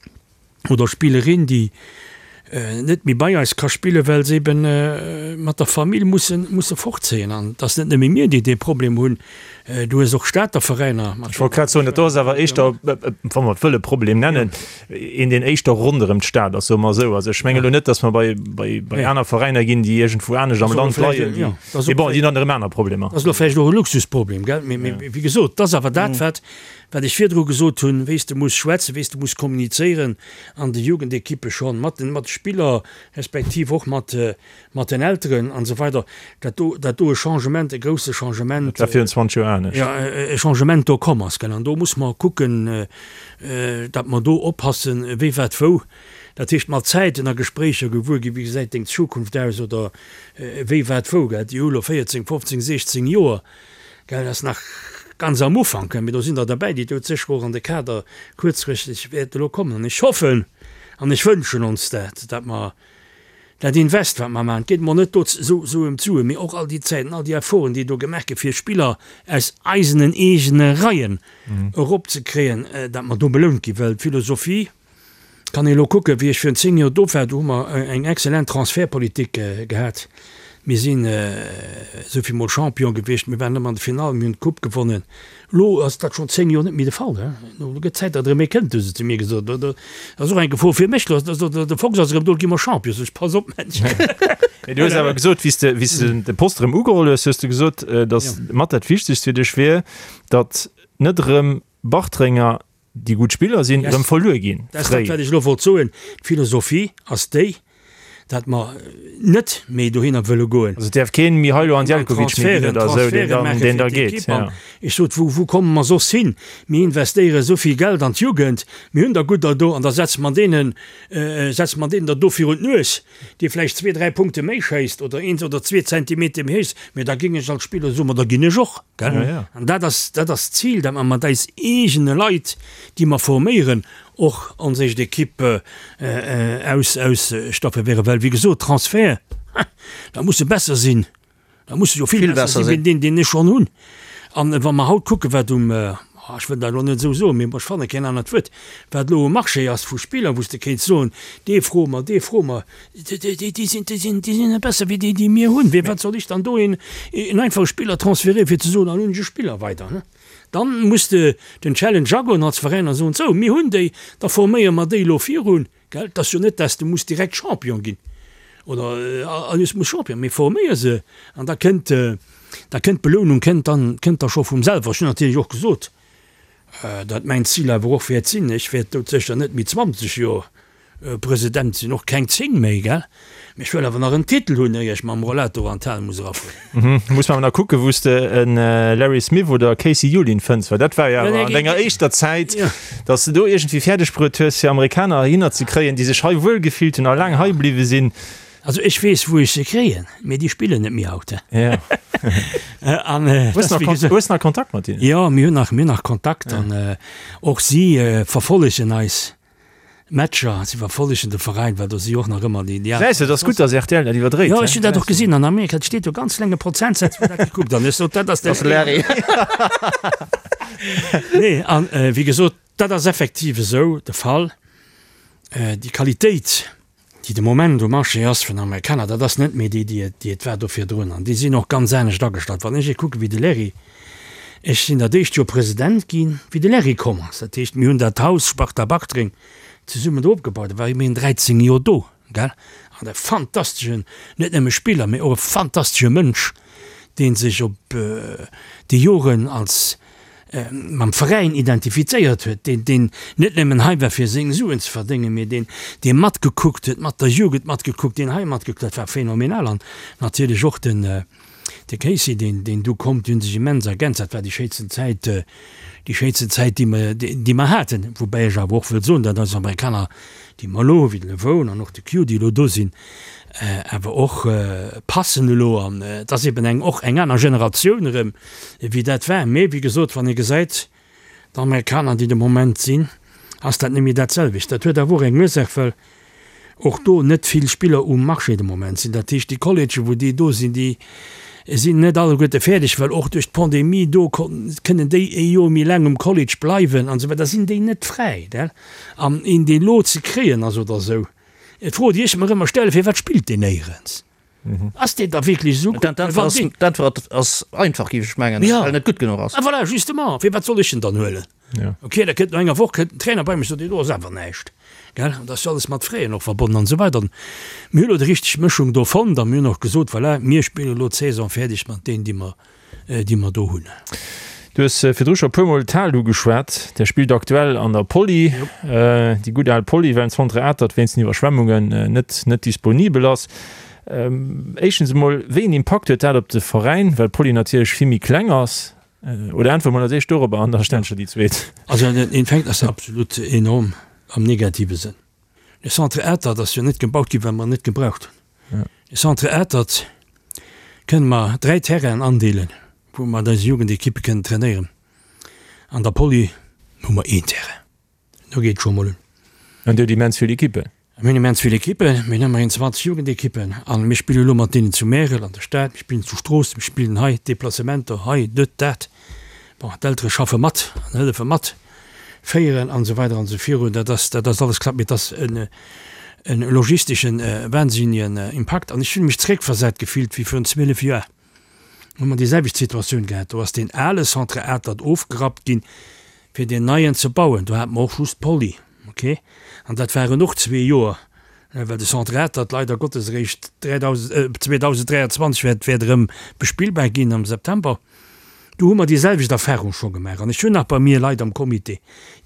oder Spillerin, déi. net méi bei eis ka spillen, well se eben mat der Famill mussen, musse fortzéien. An et ass net nëmme mir, déi dee Problem hunn, du hues och Stater Veräiner mat. Ech wollt grad soen, dat do ass awer éischter, wa mer et wëlle Problem nennen, een, deen éischter ronderëm d'Stad ass, soe mer esou. Also ech menge lo net, datt mer bei, bei, bei aner Veräiner ginn, déi iergendwou anescht am Land leien, déi, mee bon, déi hunn dann erëm aner Problemer. Dat ass elo vläicht och e Luxusproblem, gell? Mee, mee wéi gesot, et ass awer dat, wat, wat ech virdru gesot hunn, wéi s de muss schwätzen, wéi s de muss kommunizéieren an de Jugendekippe schonn, mat den, mat de Spiller respektiv och mat, mat den Elteren an esou weider, dat do, dat do e Changement, e grousse Changement. Dat war virun 20 Joer anescht. Jo, e Changement do komm ass, gell. An do muss mer kucken, datt mer do oppassen, wéi wat wou. Dat heescht, mat Zäiten a Gespréicher gewuer ginn, wéi gesäit deng Zukunft aus oder wéi wat wou, gell. Déi hu lo 14, 15, 16 Joer. Gell, dat ass nach ganz am Ufank, mee do sinn der derbäi, déi doudsécher och an de Kader kuerzfristeg wäerte lo kommen. An ech hoffen an ech wënschen ons dat, datt mer dat Invest, wat mer maachen, et geet mer net do esou ëm d'Suen, mee och all déi Zäiten, all déi Efforten, déi do gemaach gi fir Spiller aus eisenen eegene Reien eropzekréien, datt mer do belount ginn, well d'Philosophie, Kann ee lo kucken, wéi ech virun 10 Joer do war, do hu mer eng excellent Transfertpolitik gehat. Mir sinn esou vill mol Champion gewiescht, mir waren ëmmer an der Finall, mir hunn d'Coupe gewonnen. Elo ass dat schonn 10 Joer net méi de Fall. Elo gëtt d'Zäit, datt erëm ee kënnt, hu se zu mir gesot. Dat ass och eng Gefor fir mech. De Fox ass erëm do, elo gi mer Champion. Sot ech, pass op, Mensch. Mee du hues awer gesot, wéi s de, wéi s de de Poste erëm ugeholl hues, hues de gesot, datt mat dat Wichtegst fir dech wier, datt net erëm Bartrenger déi gutt Spiller sinn, erëm verluer ginn. Dat ass dat, wat ech elo wollt soen. D'Philosophie ass déi, datt mer net méi dohinner wëlle goen. Also et däerf keen Mihailo Andelkovic méi ginn oder esou, deen dann, deen da geet. Ja. Ech sot, wou, wou komme mer soss hin? Mir investéiere esou vill Geld an d'Jugend, mir hunn der gudder do an da setze mer deenen, setze mer deenen der do virun d'Nues. dee vläicht zwee, dräi Punkte méi schéisst oder een oder zwee Zentimeter méi héich, mä da géing ech als Spiller soen, ma da ginn ech och, gell? Ja, ja. An dat ass, dat ass d'Zil, dat mer mat eis eegene Leit, déi mer forméieren, och ons éischt Equipe aus, ausstafféieren, well wéi gesot, Transfert, da muss e besser sinn. Da muss se jo vill besser sinn wéi deen, deen ech schonn hunn. An wa mer haut kucken, wat um, ech wëll dat elo net esou soen, mee ech fanne keen anert Wuert, wat elo um Marché ass vu Spiller, wou s de kéints soen, dee froe mer, dee froe mer, déi sinn, déi sinn, déi sinn net besser wéi déi, déi mir hunn. Firwat soll ech dann do een, een einfache Spiller transféréieren, fir ze soen, dann hunn ech e Spiller weider? Dann muss de den Challenge agoen als Veräin a soen, sou, mir hunn déi, da forméiere mer déi elo virun. Gell, et ass jo net, dass de muss direkt Champion ginn oder alles muss Champion, mee forméier se an da kënnt, da kënnt d'Belounung kënnt dann, kënnt da scho vum selwer. Ech hunn natierlech och gesot, datt mäin Zil awer och wäert sinn, ech wäert doudsécher net méi 20 Joer President sinn, och keng 10 méi, gell, mee ech wëll awer nach en Titel hunn, éier ech mam Rollator an d'Hal muss erafueren. Muss mer awer nach kucken, wou s de en Larry Smith oder e Casey Julin fënns, well dat war jo awer an denger éischter Zäit, Dass de do iergendwéi fäerdeg bruet hues, fir Amerikaner heihinner ze kréien, déi sech hei wuel gefillt hunn a laang hei bliwwe sinn. Also ech weess, wou ech se kréien, mee déi spillen net méi haut. Ja. An Hues nach Kon hues nach Kontakt mat hinnen? Jo, mir hunn nach, mir hunn nach Kontakt an och si verfollegen eis Matcher, si verfollegen de Veräin, well do si jo och nach ëmmer déi, déi Gesäis de, et ass gutt, dass rtl dat iwwerdréit. Jo, ech hunn dat och gesinn an Amerika, et steet do ganz klenge Prozentsaz, wou dat gekuckt an ech sot, dat ass de Larry. Nee, an wéi gesot, dat ass effektiv esou de Fall. Déi Qualitéit, déi de Moment um Marché ass vun Amerikaner, dat ass net méi déi, déi et, déi et war do virdrun. An déi sinn och ganz anescht agestallt. Wann ech ee kucke wéi de Larry, ech sinn dat éischt Joer President ginn, wéi de Larry komm ass. Dat heescht, mir hunn dat Haus Sparta Bartreng zesummen do opgebaut. Da war ëmmerhin 13 Joer do, gell. An e fantasteschen, net nëmme Spiller, mee och e fantastesche Mënsch, dee sech op déi Joren als mam Veräin identifizéiert huet, deen, deen net nëmmen hei war fir seng Suen ze verdéngen, mee deen, dee matgekuckt huet, mat der Jugend matgekuckt, deen hei matgekuckt, dat war phänomenal. An natierlech och den, De Casey, deen, deen du komm, déi hunn sech immens ergänzt. Dat war déi schéinsten Zäit, déi schéinsten Zäit, déi mer, déi mer haten. Woubäi ech awer och wëll soen, datt eis Amerikaner, déi mer elo hu wéi de Levone an och de Q, déi elo do sinn, awer och passen elo. An et ass eben eng, och eng aner Generatioun erëm, wéi dat war. Mee wéi gesot, wann ee gesäit, D'Amerikaner, déi de Moment sinn, ass dat net méi dat selwecht. Dat huet awer och eng Ursaach, well och do net vill Spiller um Marché de Moment sinn. Dat heescht, déi Collegë wou déi do sinn, déi sinn net alleguerte fäerdeg, well och duerch d'Pandemie do kënnen déi ee Joer méi laang um College bleiwen an esou weider, da sinn déi net fräi. An een deen elo ze kréien ass oder esou. D'Fro, déi ech mer ëmmer stellen, Firwat spillt deen néierens? Ass deen da wierklech esou gutt? D'Äntwert ass einfach, géif ech mengen, well en net gutt genuch ass. Ah voilà, justement, firwat soll ech en dann huelen? Ok, da kënnt no enger Woch kënnt den Trainer bei mech, sot, deen do ass awer näischt, gell? An dat ass jo alles mat Fräen och verbonnen an esou weider. Mir hu lo déi richteg Mëschung do fonnt a mir hunn och gesot, voilà, mir spille lo d'Saison fäerdeg mat deenen, déi mer déi mer do hunn. Du hues virdru scho e puermol d'Hal ugeschwat. Där spillt aktuell an der Poly, déi gutt al Poly, well den Centre Atert wéinst den Iwwerschwemmungen net net disponibel ass. Éischtens emol, wéi een Impakt huet dat op de Veräin, well d'Poly natierlech vill méi kleng ass? Oder äntwere mol als éischt dorobber an da stellen ech der déi zweet. Also den Infekt ass absolut enorm am negative Sënn. De Centre Atert ass jo net gebaut ginn, well mer en net gebraucht hunn. De Centre Atert kënne mer 3 Terrainen andeelen, wou mer eis Jugendekippe kënnen trainéieren. An der Poly hu mer een Terrain. Do geet et scho mol un. An Dir hutt immens vill Ekippen? Mir hunn immens vill Ekippen. Mir hunn ëmmerhin 20 Jugendekippen. A mir spille elo mat deenen zu Märel an der Stad, mir spillen zu Stroossen, mir spillen hei, Deplacementer hei, dët, dat. Bon, d'Eltere schaffe mat an hëllefe mat féieren an esou weider an esou virun. Dat ass, dat ass alles klappt, mee et ass en, en logisteschen wahnsinnigen Impakt. An ech hunn mech zréckversat gefillt wéi virun 12 Joer. Hu mer déi selwecht Situatioun gehat. Do ass deen ale Centre Atert ofgerappt ginn, fir deen neien ze bauen. Do hate mer och just d'Poly, okay? An dat waren och zwee Joer, well de Centre Atert leider Gottes eréischt 2023 wäert, wäert erëm bespillbar ginn am September. Do hu mer déi selwecht Erfahrung scho gemaach. An ech hunn nach bei mir Leit am Comité,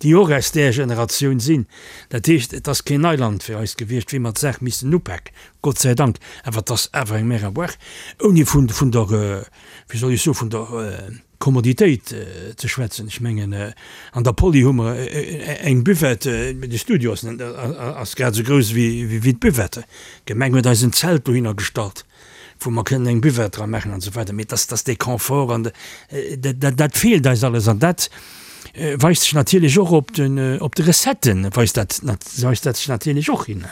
déi och aus där Generatioun sinn. Dat heescht, et ass keen Neiland fir eis gewiescht, wéi mer d'Saach missen upaken, Gott sei Dank. Awer et ass awer eng Mer à boire, ouni vun der, wéi soll ech soen, vun der Kommoditéit ze schwätzen. Ech mengen, an der Poly hu mer eng Buvette, de Studio ass grad esou grouss wéi d'Buvette. D'Gemeng huet eis en Zelt dohinner gestallt. wou mer kënnen eng Buvette dra maachen an esou weider, mee dass, dass dee Confort an dat, dat feelt eis alles an dat weist sech natierlech och op den, op de Recetten weist dat, weist dat sech natierlech och hin.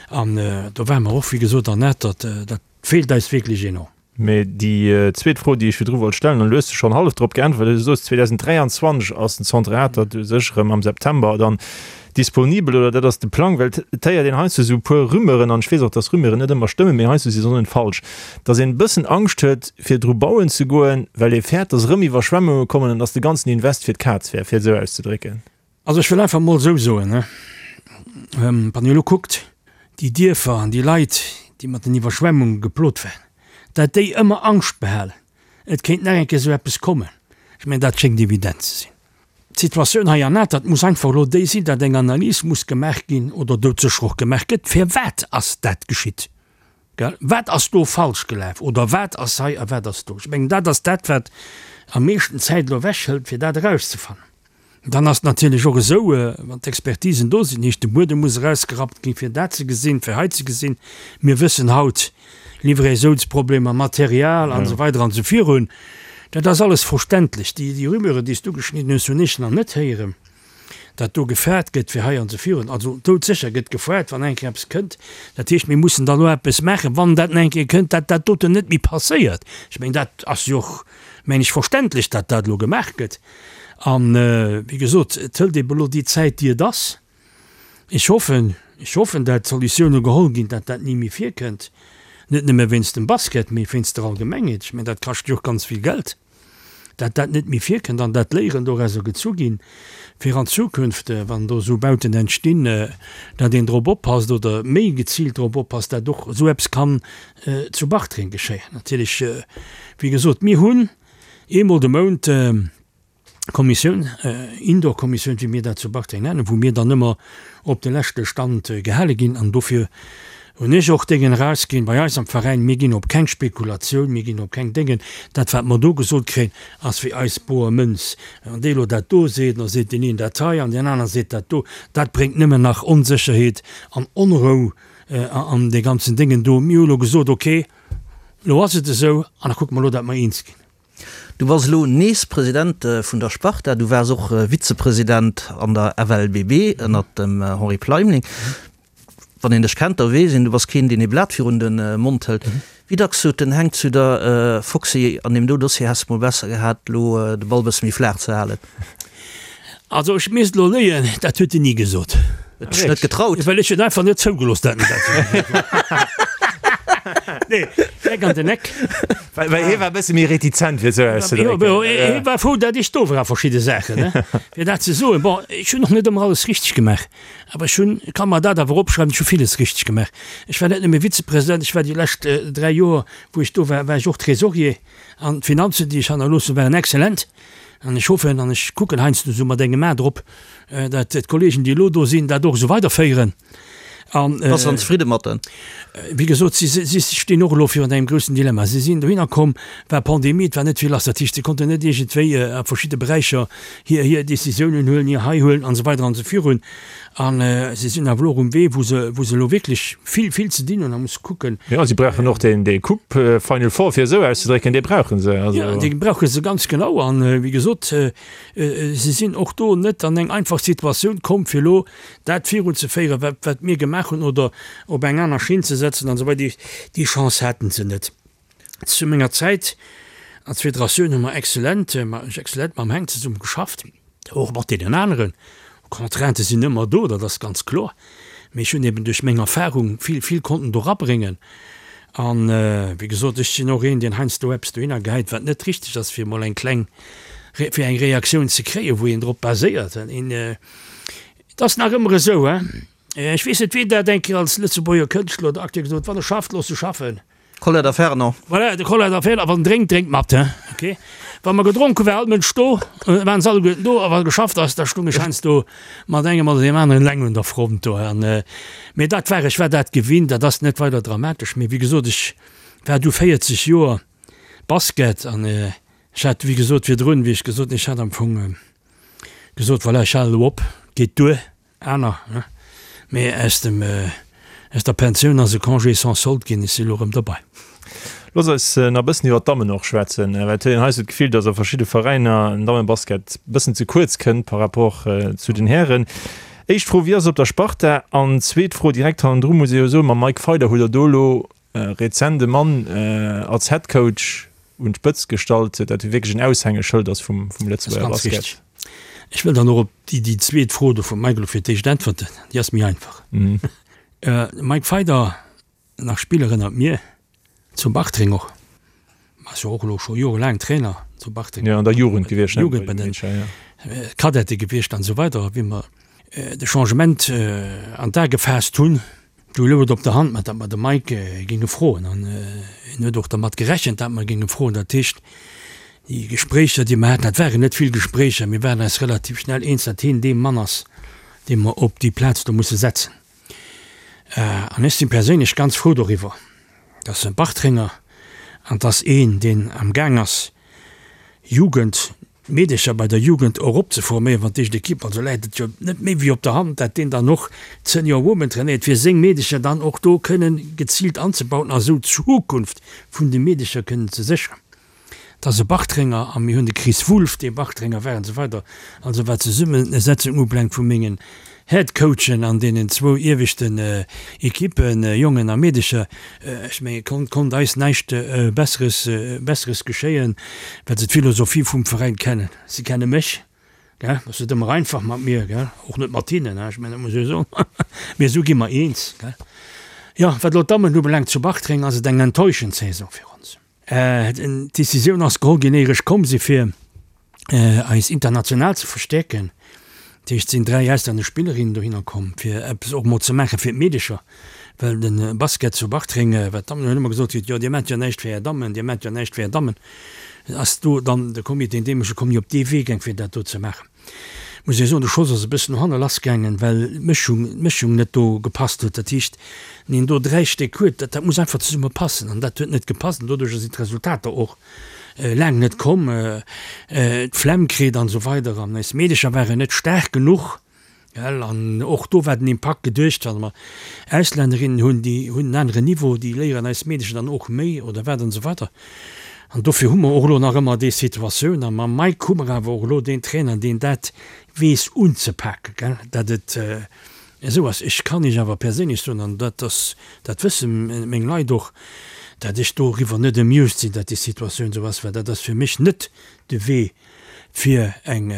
An do ware mer och, wéi gesot, an Atert, dat feelt eis wierklech enorm. Mee déi zweet Fro, déi ech virdru wollt stellen, an du hues schonn hallef drop geäntwert, du soos 2023 ass den Centre Atert u sech erëm am September dann Disponibel, oder dat ass de Plang, well et héiert een heiansdo esou e puer Rumeuren, an ech weess och, dass Rumeuren net ëmmer stëmmen, mee heiansdo si se och net falsch, dass een e bëssen Angscht huet, fir dru bauen ze goen, well ee fäert, dass erëm Iwwerschwemmunge kommen an dass de ganzen Invest fir d'Kaz wär, fir et esou auszedrécken. Also ech wëll einfach emol esou soen, wann Dir elo kuckt, déi Dierfer an déi Leit, déi mat den Iwwerschwemmunge geplot waren, dat déi ëmmer Angscht behalen, et kéint nach eng Kéier esou eppes kommen, ech mengen, dat schéngt evident ze sinn. D'Situatioun hei an Atert muss einfach elo déi sinn, datt eng Analys muss gemaach ginn oder doudsécher och gemaach gëtt, Firwat ass dat geschitt? Gell? Wat ass do falsch gelaf oder wat ass hei a wat ass do? Ech mengen, dat ass dat, wat am meeschten Zäit elo ewechhëlt, fir dat erauszefannen. Dann ass et natierlech och esou, wann d'Expertisen do sinn, heescht de Buedem muss erausgerappt ginn, fir dat ze gesinn, fir hei ze gesinn. Mir wëssen haut, Livraisounsproblemer, Material an esou weider an esou virun. Dat ass alles verständlech. Déi, déi Rumeuren, déi s du geschnidden hues, hunn ech nach net héieren, datt do gefaart gëtt fir hei an esou virun. Also doudsécher gëtt gefaart, wann eng Kéier eppes kënnt. Dat heescht, mir mussen dann elo eppes maachen, wann dat eng Kéier kënnt, datt dat doten net méi passéiert. Ech mengen, dat ass jo och, mengen ech, verständlech, datt dat elo gemaach gëtt. An, wéi gesot, et hëlt ebe elo déi Zäit, déi et ass. Ech hoffen, ech hoffen, dat Solutioune geholl ginn, dat dat ni méi virkënnt, net nëmme wéinst dem Basket, mee wéinst der Allgemengheet. Ech mengen, dat kascht jo och ganz vill Geld, dat dat net méi virkënnt an dat Léieren dorauser gezu ginn, fir an Zukunft, wann do esou Bauten entstinn, dat een drop oppasst oder méi geziilt drop oppasst, dat och esou eppes kann zu Bartreng geschéien. Natierlech, wéi gesot, mir hunn eemol de Mount, Kommissioun, Indoor-Kommissioun, wéi mir dat zu Bartreng nennen, wou mir dann ëmmer op de leschte Stand gehale ginn. An dofir hunn ech och Déngen erausginn bei eis am Veräin, Mir ginn op keng Spekulatioun, mir ginn op keng Déngen. Dat, wat mer do gesot kréien, ass fir eis boer Mënz. Wann dee elo dat do seet, da seet deen een dat hei an deen aner seet dat do. Dat bréngt nëmmen nach Onsécherheet an Onrou an dee ganzen Déngen do. Mir hu elo gesot, okay, elo ass et esou an da kucke mer elo, datt mer eens ginn. Du bass elo nees President vun der Sparta, du waars och Vizepresident an der FLBB ënnert dem Henri Pleimling. Wann een dech kennt, da weess een, du bass keen, deen ee Blat virun de Mond hëlt. Wéi dacks sot den Heng zu der, Foxy, an deem do Dossier häss de mol besser gehat, elo de Ball bësse méi flaach ze halen? Also ech misst elo léien, dat huet en ni gesot. Huet dech net getraut? Well ech et einfach net zougelooss dat en dat Nee, direkt an den Eck. Well, well hie war e bësse méi retizent, fir esou auszedrécken. Jo, hie war frou, dat ech do war a verschidde Saachen, ne, fir dat ze soen. Bon, ech hunn och net ëmmer alles richteg gemaach, awer ech hunn, ka mer dat awer opschreiwen, ech hu villes richteg gemaach. Ech war net nëmme Vizepresident, ech war déi lescht 3 Joer, wou ech do war, war ech och Trésorier an d'Finanzen, déi ech hannerlooss hunn, waren exzellent. An ech hoffen an ech kucken heiansdo esou mat engem A drop, dat d'Kollegen, déi elo do sinn, dat och esou weiderféieren. An, Bass de dann zefridde mat den? Wéi gesot, si, si stinn och elo virun engem groussen Dilemma. Si sinn dohinner komm, war Pandemie, et war net vill lass. Dat heescht, si konnten net iergendwéi a verschidde Beräicher hir, hir Décisiounen huelen, hir hei huelen an esou weider an esou virun. A si sinn awer elo och um Wee, wou se, wou se elo wierklech vill, vill ze dinn hunn a musse kucken. Jo, si brauchen och deen, dee Coupe Final Four, fir esou auszedrécken, dee brauche se. Also. Jo, dee brauche se ganz genau. An, wéi gesot, si sinn och do net an eng einfach Situatioun komm, fir elo dat virunzeféieren, wat, wat mir gemaach hunn, oder op eng aner Schinn ze setzen an esou weider. Déi Chance haten se net. Zu menger Zäit als Federatioun hu mer exzellent, exzellent mam Heng zesumme geschafft, och mat deenen aneren. Contraintë sinn ëmmer do, dat ass ganz kloer, mee ech hunn eben duerch meng Erfahrung vill, vill konnten do rabréngen. An, wéi gesot, ech sinn och een, deen heiansdo eppes dohinner gehäit, wat net richteg ass, fir emol eng kleng, fir eng Reaktioun ze kréien, wou een drop baséiert. Et ass nach ëmmer esou, hein, ech weess net, wien dat eng Kéier als Lëtzebuerger Kënschtler oder Acteur gesot huet, Wann e schafft, looss e schaffen. Colette a Fernand. Voilà, de Colette a Fernand, a wann en drénkt, drénkt mat, hein, ok. Wa mer gedronk hunn, war all Mënsch do, waren se alleguerten do, a wa geschafft ass, da stung ech heiansdo mat engem oder deem aneren eleng un der Front do. An, mee dat war, ech war dat gewinnt, dat ass net weider dramatesch. Mee wéi gesot, ech war du 40 Joer Basket an ech hat, wéi gesot, virdrun, wéi ech gesot hunn, ech hat am Fong gesot, voilà, ech halen elo op, geet duer. Aner, ne? Mee aus dem, aus der Pensioun ass e Congé sans solde ginn, ech si elo erëm derbei. Looss eis nach e bëssen iwwer d'Dammen och schwätzen, well et huet een hei sou d'Gefill, datt a verschidde Veräiner den Dammebasket e bëssen ze kuerz kënnt par rapport zu den Hären. Éischt Fro, Wéi ass et op der Sparta? An zweet Fro direkt hannendru muss ee jo soen, mam Mike Feider hutt Der do elo rezent e Mann als Headcoach un d'Spëtzt gestallt, dat jo wierklech en Aushängeschëld ass vum Lëtzebuerger Basket. Ech wëll dann och op déi zweet Fro do vum Mike elo fir d'éischt äntwerten, déi ass méi einfach. De Mike Feider, nach Spiller ënnert mir, zu Bartreng och, ass jo och elo scho jorelaang Trainer zu Bartreng. Jo, an der Jugend gewiescht, ne? Jugend bei den Cadete gewiescht an esou weider. Wéi mer de Changement an d'A gefaasst hunn, Du louch et op der Hand, datt mer de Mike géinge froen. An en huet och dermat gerechent, datt mer géinge froen. Dat heescht, déi Gespréicher, déi mer haten, dat waren net vill Gespréicher, mir waren eis relativ schnell eens, datt hien dee Mann ass, dee mer op déi Plaz do musse setzen. An ech si perséinlech ganz frou doriwwer, datt e Bartrenger, an 't ass een, deen amgaang ass, Jugend Meedercher bei der Jugend eropzeforméieren, wann d'éischt Ekipp, also läit et jo net méi wéi op der Hand, dat deen dann och d'Senior Women trainéiert, fir seng Meedercher dann och do kënnen geziilt anzebauen a sou d'Zukunft vun de Meedercher kënnen ze sécheren. Et ass e Bartrenger a mir hunn de Chris Wulff, dee Bartrenger war an esou weider. Also wat d'Zesummesetzung ubelaangt vu mengen Headcoachen an deenen zwou ieweschten Ekippen, Jongen a Meedecher, ech mengen, konnt, konnt eis näischt Besseres, Besseres geschéien, well se d'Philosophie vum Veräin kennen. Si kenne mech, gell, ass net ëmmer einfach mat mir, gell, och net mat hinnen, ech mengen, dat muss ech soen, mee esou gi mer eens, gell. Jo, wat elo d'Dammen ubelaangt zu Bartreng, ass et eng enttäuschend Saison fir ons. D'Decisioun ass geholl ginn, éier ech komm si fir eis international ze verstäerken. Dat heescht, et sinn 3 auslännesch Spillerinnen dohinner komm, fir eppes och mol ze maache fir d'Meedecher, well de Basket zu Bartreng, wat d'Dammen hunn ëmmer gesot kritt, jo Dir maacht jo näischt fir Är Dammen, Dir maacht jo näischt fir Är Dammen, ass do dann de Comité, an deem ech komm, jo op dee Wee gaang fir dat do ze maachen. Muss ee soen, de Schoss ass e bëssen no hanne lass gaangen, well d'Mëschung, d'Mëschung net do gepasst huet. Dat heescht, wann een do 3 Stéck huet, dat, dat muss einfach zesumme passen an dat huet net gepasst an doduercher sinn d'Resultater och laang net komm. D'Flemm kritt an esou weider an eis Meedecher waren net staark genuch. Gell, an och do war den Impakt geduecht, wann mer Auslännerinnen hunn, déi hunn en aneren Niveau, déi léieren eis Meedecher dann och méi oder wat an esou weider. An dofir hu mer och elo nach ëmmer déi Situatioun. A mam Mike hu mer awer och elo deen Trainer, deen dat weess unzepaken, gell, datt et esou ass. Ech kann Iech awer perséinlech soen, an dat ass, dat wësse meng Leit och, datt ech doriwwer net amused sinn, datt déi Situatioun esou ass, well dat ass fir mech net de Wee fir eng.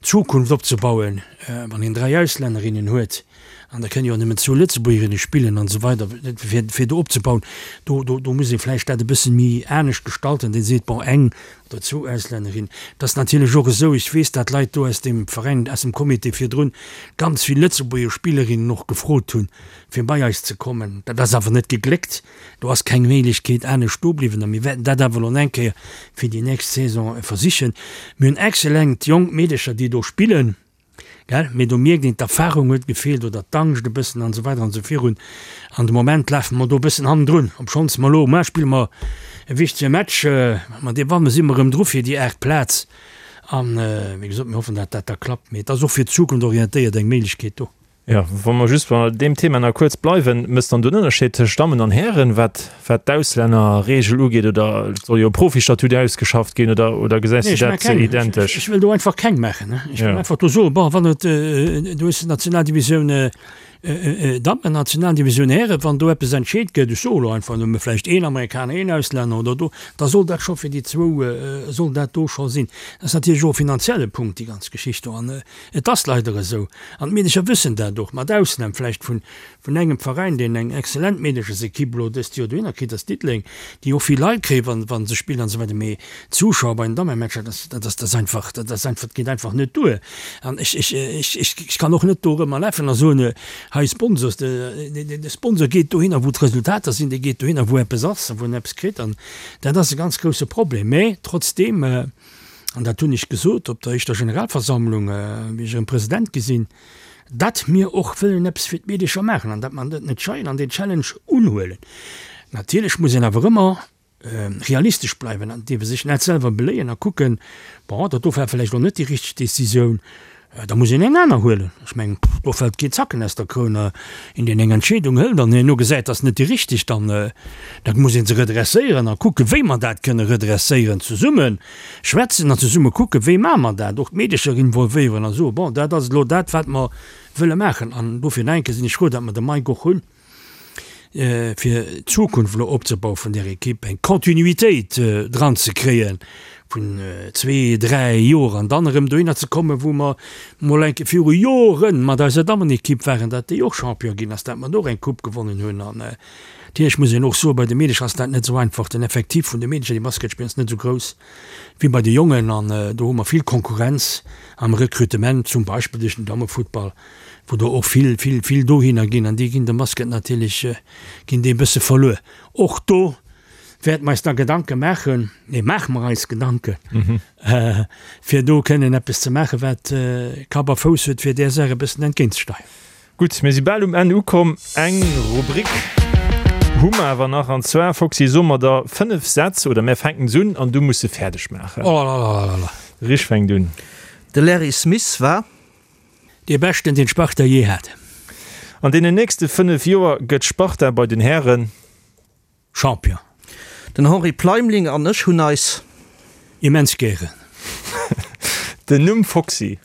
Zukunft opzebauen, wann een 3 Auslännerinnen huet, an da kënne jo nëmmen zwou Lëtzebuergerinne spillen an esou weider, fir, fir do opzebauen, do, do, do muss ee vläicht dat e bësse méi anescht gestalten, dee seet, bon, eng oder zwou Auslännerinnen. Et ass natierlech och esou, ech weess, dat Leit do aus deem Veräin, aus dem Comité virdrun ganz vill Lëtzebuerger Spillerinnen och gefrot hunn, fir bei eis ze kommen. Dat ass awer net gegléckt. Do ass keng Méiglechkeet anescht do bliwwen a mir wäerten dat awer elo eng Kéier fir déi nächst Saison versichen. Mir hunn excellent jonk Meedecher, déi do spillen, gell, mee do mierkt een, d'Erfahrung huet gefeelt oder d'Angscht e bëssen an esou weider an esou virun. An de Moment lafe mer do e bëssen hannendrun, obschonns mer elo, muer spille mer e wichtege Match, ma dee wanne si mer erëm dru fir déi aacht Plaz an, wéi gesot, mir hoffen, dat dat da klappt. Mee et ass och fir d'Zukunft orientéiert eng Méiglechkeet do. Jo, wa mer just bei deem Thema nach kuerz bleiwen, Mécht dann do en Ënnerscheed tëscht Dammen an Hären, wat wat d'Auslännerregel ugeet, oder et soll jo e Profistatut ausgeschafft ginn, oder oder gesäis du dat identesch? Ech wëll do einfach keng maachen. Ech wëll einfach do soen, bon, wann et, du hues d'Nationaldivisioun Dammen, Nationaldivisioun Hären, wann do eppes entscheet gëtt, ech soe lo einfach nëmme vläicht een Amerikaner, een Auslänner oder do, da soll dat scho fir déi zwou, soll dat do scho sinn. Dat ass natierlech och e finanzielle Punkt, déi ganz Geschicht do. An Et ass leider esou, an d'Meedecher wëssen dat och, mat Ausnam vläicht vun vun engem Veräin, deen eng exzellent Meedechersekipp elo dëst Joer dohinner kritt, ass Diddeleng, déi och vill Leit kréien, wa wa se spillen an esou weider, mee d'Zuschauer bei den Dammematcher, dat ass dat ass dat ass einfach dat ass einfach dat geet einfach net duer. An ech ech ech ech ech kann och net do erëm erlafen a soen, hei Sponsors, de de Sponsor geet dohinner, wou d'Resultater sinn, dee geet dohinner, wou eppes ass a wou en eppes kritt an dat ass e ganz grousse Problem. Mee trotzdeem. an dat hunn ech gesot op der éischter Generalversammlung, wéi ech erëm President gi sinn, datt mir och wëllen eppes fir d'Meedecher maachen an datt mer dat net scheien an deen Challenge unhuelen. Natierlech muss een awer ëmmer realistesch bleiwen an dierfe sech net selwer beléien a kucken, bon, dat do war vläicht elo net déi richteg Décisioun, Da muss een eng aner huelen. Ech mengen, do fält keen Zacken aus der Kroun. Een, deen eng Entscheedung hëlt an herno gesäit, dat ass net déi richteg, dann da muss ee se redresséieren a kucken, wéi mer dat kënne redresséieren, zesumme schwätzen an zesumme kucken, wéi maache mer dat, och d'Meedecher involvéieren a soen, bon, dat ass elo dat, wat mer wëlle maachen. An dofir nach eng Kéier sinn ech frou, datt mer de Mike och hunn. fir d'Zukunft elo opzebaue vun där Ekipp, eng Kontinuitéit dran ze kréie vun zwee, dräi Joer an dann erëm dohinner ze kommen, wou mer mol eng Kéier viru Jore mat eiser Dammenekipp waren, datt déi och Champion ginn ass, datt mer do och eng Coupe gewonnen hunn. An natierlech muss een och soen, bei de Meedecher ass dat net esou einfach. Den Effektiv vun de Meedecher, déi Basket spillen, ass net esou grouss wéi bei de Jongen an do hu mer vill Konkurrenz am Rekrutement, zum Beispill duerch den Dammefuttball. wou der och vill, vill, vill dohinner ginn an déi ginn dem Basket natierlech, ginn déi e bësse verluer. Och do wäerte mer eis da Gedanke maachen, nee, maache mer eis Gedanken, fir do kënnen eppes ze maachen, wat Kapp a Fouss huet, fir där Saach e bëssen entgéintzesteieren. Gutt, mir si bal um Enn ukomm. Eng Rubrik hu mer awer nach, an zwar, Foxy, soe mer der 5 Sätz, oder mär fänken se un an du muss se fäerdeg maachen. Olalalala. Rich fänkt un. De Larry Smith war. Dee beschten deen d'Sparta jee hat. An deenen nächste 5 Joer gëtt d'Sparta bei den Hären. Champion. Den Henri Pleimling an ech hunn eis. Immens gären. Den Numm Foxy.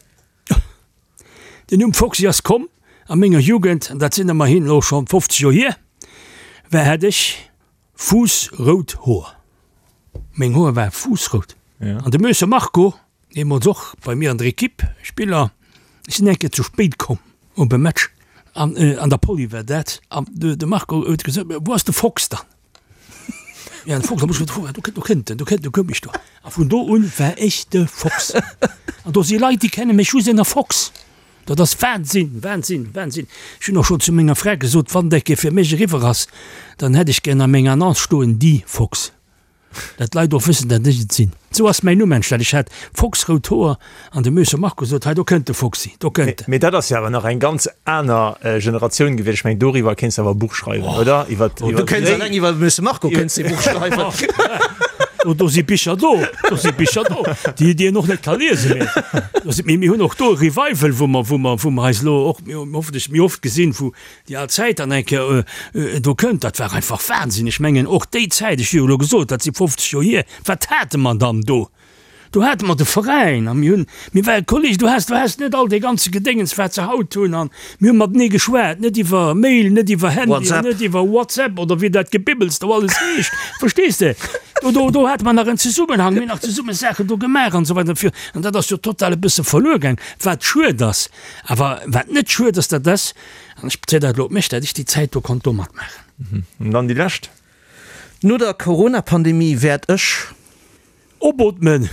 Den Numm Foxy ass komm a menger Jugend, an dat sinn ëmmerhin elo schonn 50 Joer hier, war hat ech fuussrout Hoer. Meng Hoer ware fuussrout. An de Möser Marco, deemools och bei mir an der Equipe, Spiller, ech sinn eng Kéier ze spéit komm op e Match, an an der Poly war dat, an de Marco huet gesot, Wou ass de Fox dann? Ja, de Fox, da muss ech do do kënnt en, do kënnt, do koum ech do. A vun do un war ech de Fox. An do si Leit, déi kenne mech just ënner Fox. Dat ass Wahnsinn, Wahnsinn, Wahnsinn. Ech hunn och schonn zu menger Fra gesot, wann dat Kéier fir mech eriwwer ass, dann hätt ech gär a menger Annonce stoen, Die Fox. Dat d'Leit och wëssen, dat ech et sinn. Sou ass mäin Numm entstanen. Ech hat foxrout Hoer an de Möser Marco sot, Hei, do kënnt de Foxy, do kënnt en. Mee dat ass jo awer nach eng ganz aner Generatioun gewiescht. Ech mengen, doriwwer kéints de awer e Buch schreiwen, oder? Iwwer, iwwer Du kéints eleng iwwer de Möser Marco kéints de e Buch schreiwen. Do, do si Bicher do, do si Bicher do, déi, déi een och net ka liesen. Mee do si, mee mir hunn och do e Revival, wou mer, wou mer, wou mer eis elo och hoffentlech méi oft gesinn, wou Déi al Zäit dann eng Kéier do kënnt, dat war einfach Wahnsinn. Ech mengen och déi Zäit, ech hu jo elo gesot, dat si 50 Joer hier, wat hate mer dann do? Do hate mer de Veräin a mir hunn, mir ware Kolleegen, du has, du has net all dee ganze Gedéngens, wat se haut hunn an mir hu matenee geschwat, net iwwer Mail, net iwwer Handy an net iwwer WhatsApp oder wéi dat Gebibbels do alles heescht, verstees de? Do, do, do hate mer nach en Zesummenhang, mir hunn nach zesumme Saachen do gemaach an esou weider fir. An dat ass jo total e bësse verluer gaang, wat schued ass. Awer wat net schued ass, dat ass, an ech bezéien dat elo op mech, dat ech déi Zäit do konnt do matmaachen. An dann déi lescht. No der Corona-Pandemie wäert ech. Opootmen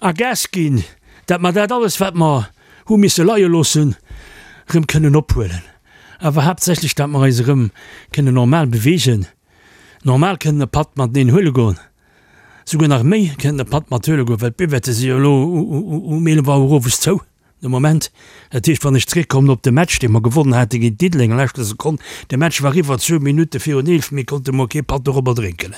a Gas ginn, dat mer dat alles, wat mer hu misse leie loossen, erëm kënnen ophuelen. Awer haaptsächlech, dat mer eis erëm kënnen normal beweegen, normal kënnen e Patt mateneen huele goen, souguer nach méi kënnen e Patt mat huele goen, well d'Buvette si jo elo um 11 Auer owes zou de Moment. Dat heescht, wann ech zeréckkommen op de Match, dee mer gewonnen hate géint Diddeleng a leschter Sekonn, de Match war eriwwer, zwou Minutte virun 11, mir konnte mol kee Patt dorobber drénken.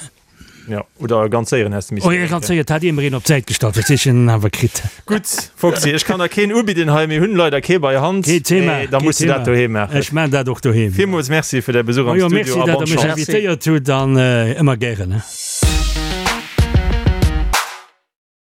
Jo, oder ganz séieren häss de missen drénken. Ganz séier, et hat ee mer een op d'Säit gestallt, verstees de, en awer kritt. Gutt, Foxy, ech kann der keen ubidden hei, mir hunn leider kee bei Hand. Keen Thema, mee da muss de dat doheem maachen. Ech maan dat och doheem. Villmools Merci fir däi Besuch am Studio a bonne Chance. Majo, merci, dat der mech invitéiert hutt an ëmmer gären.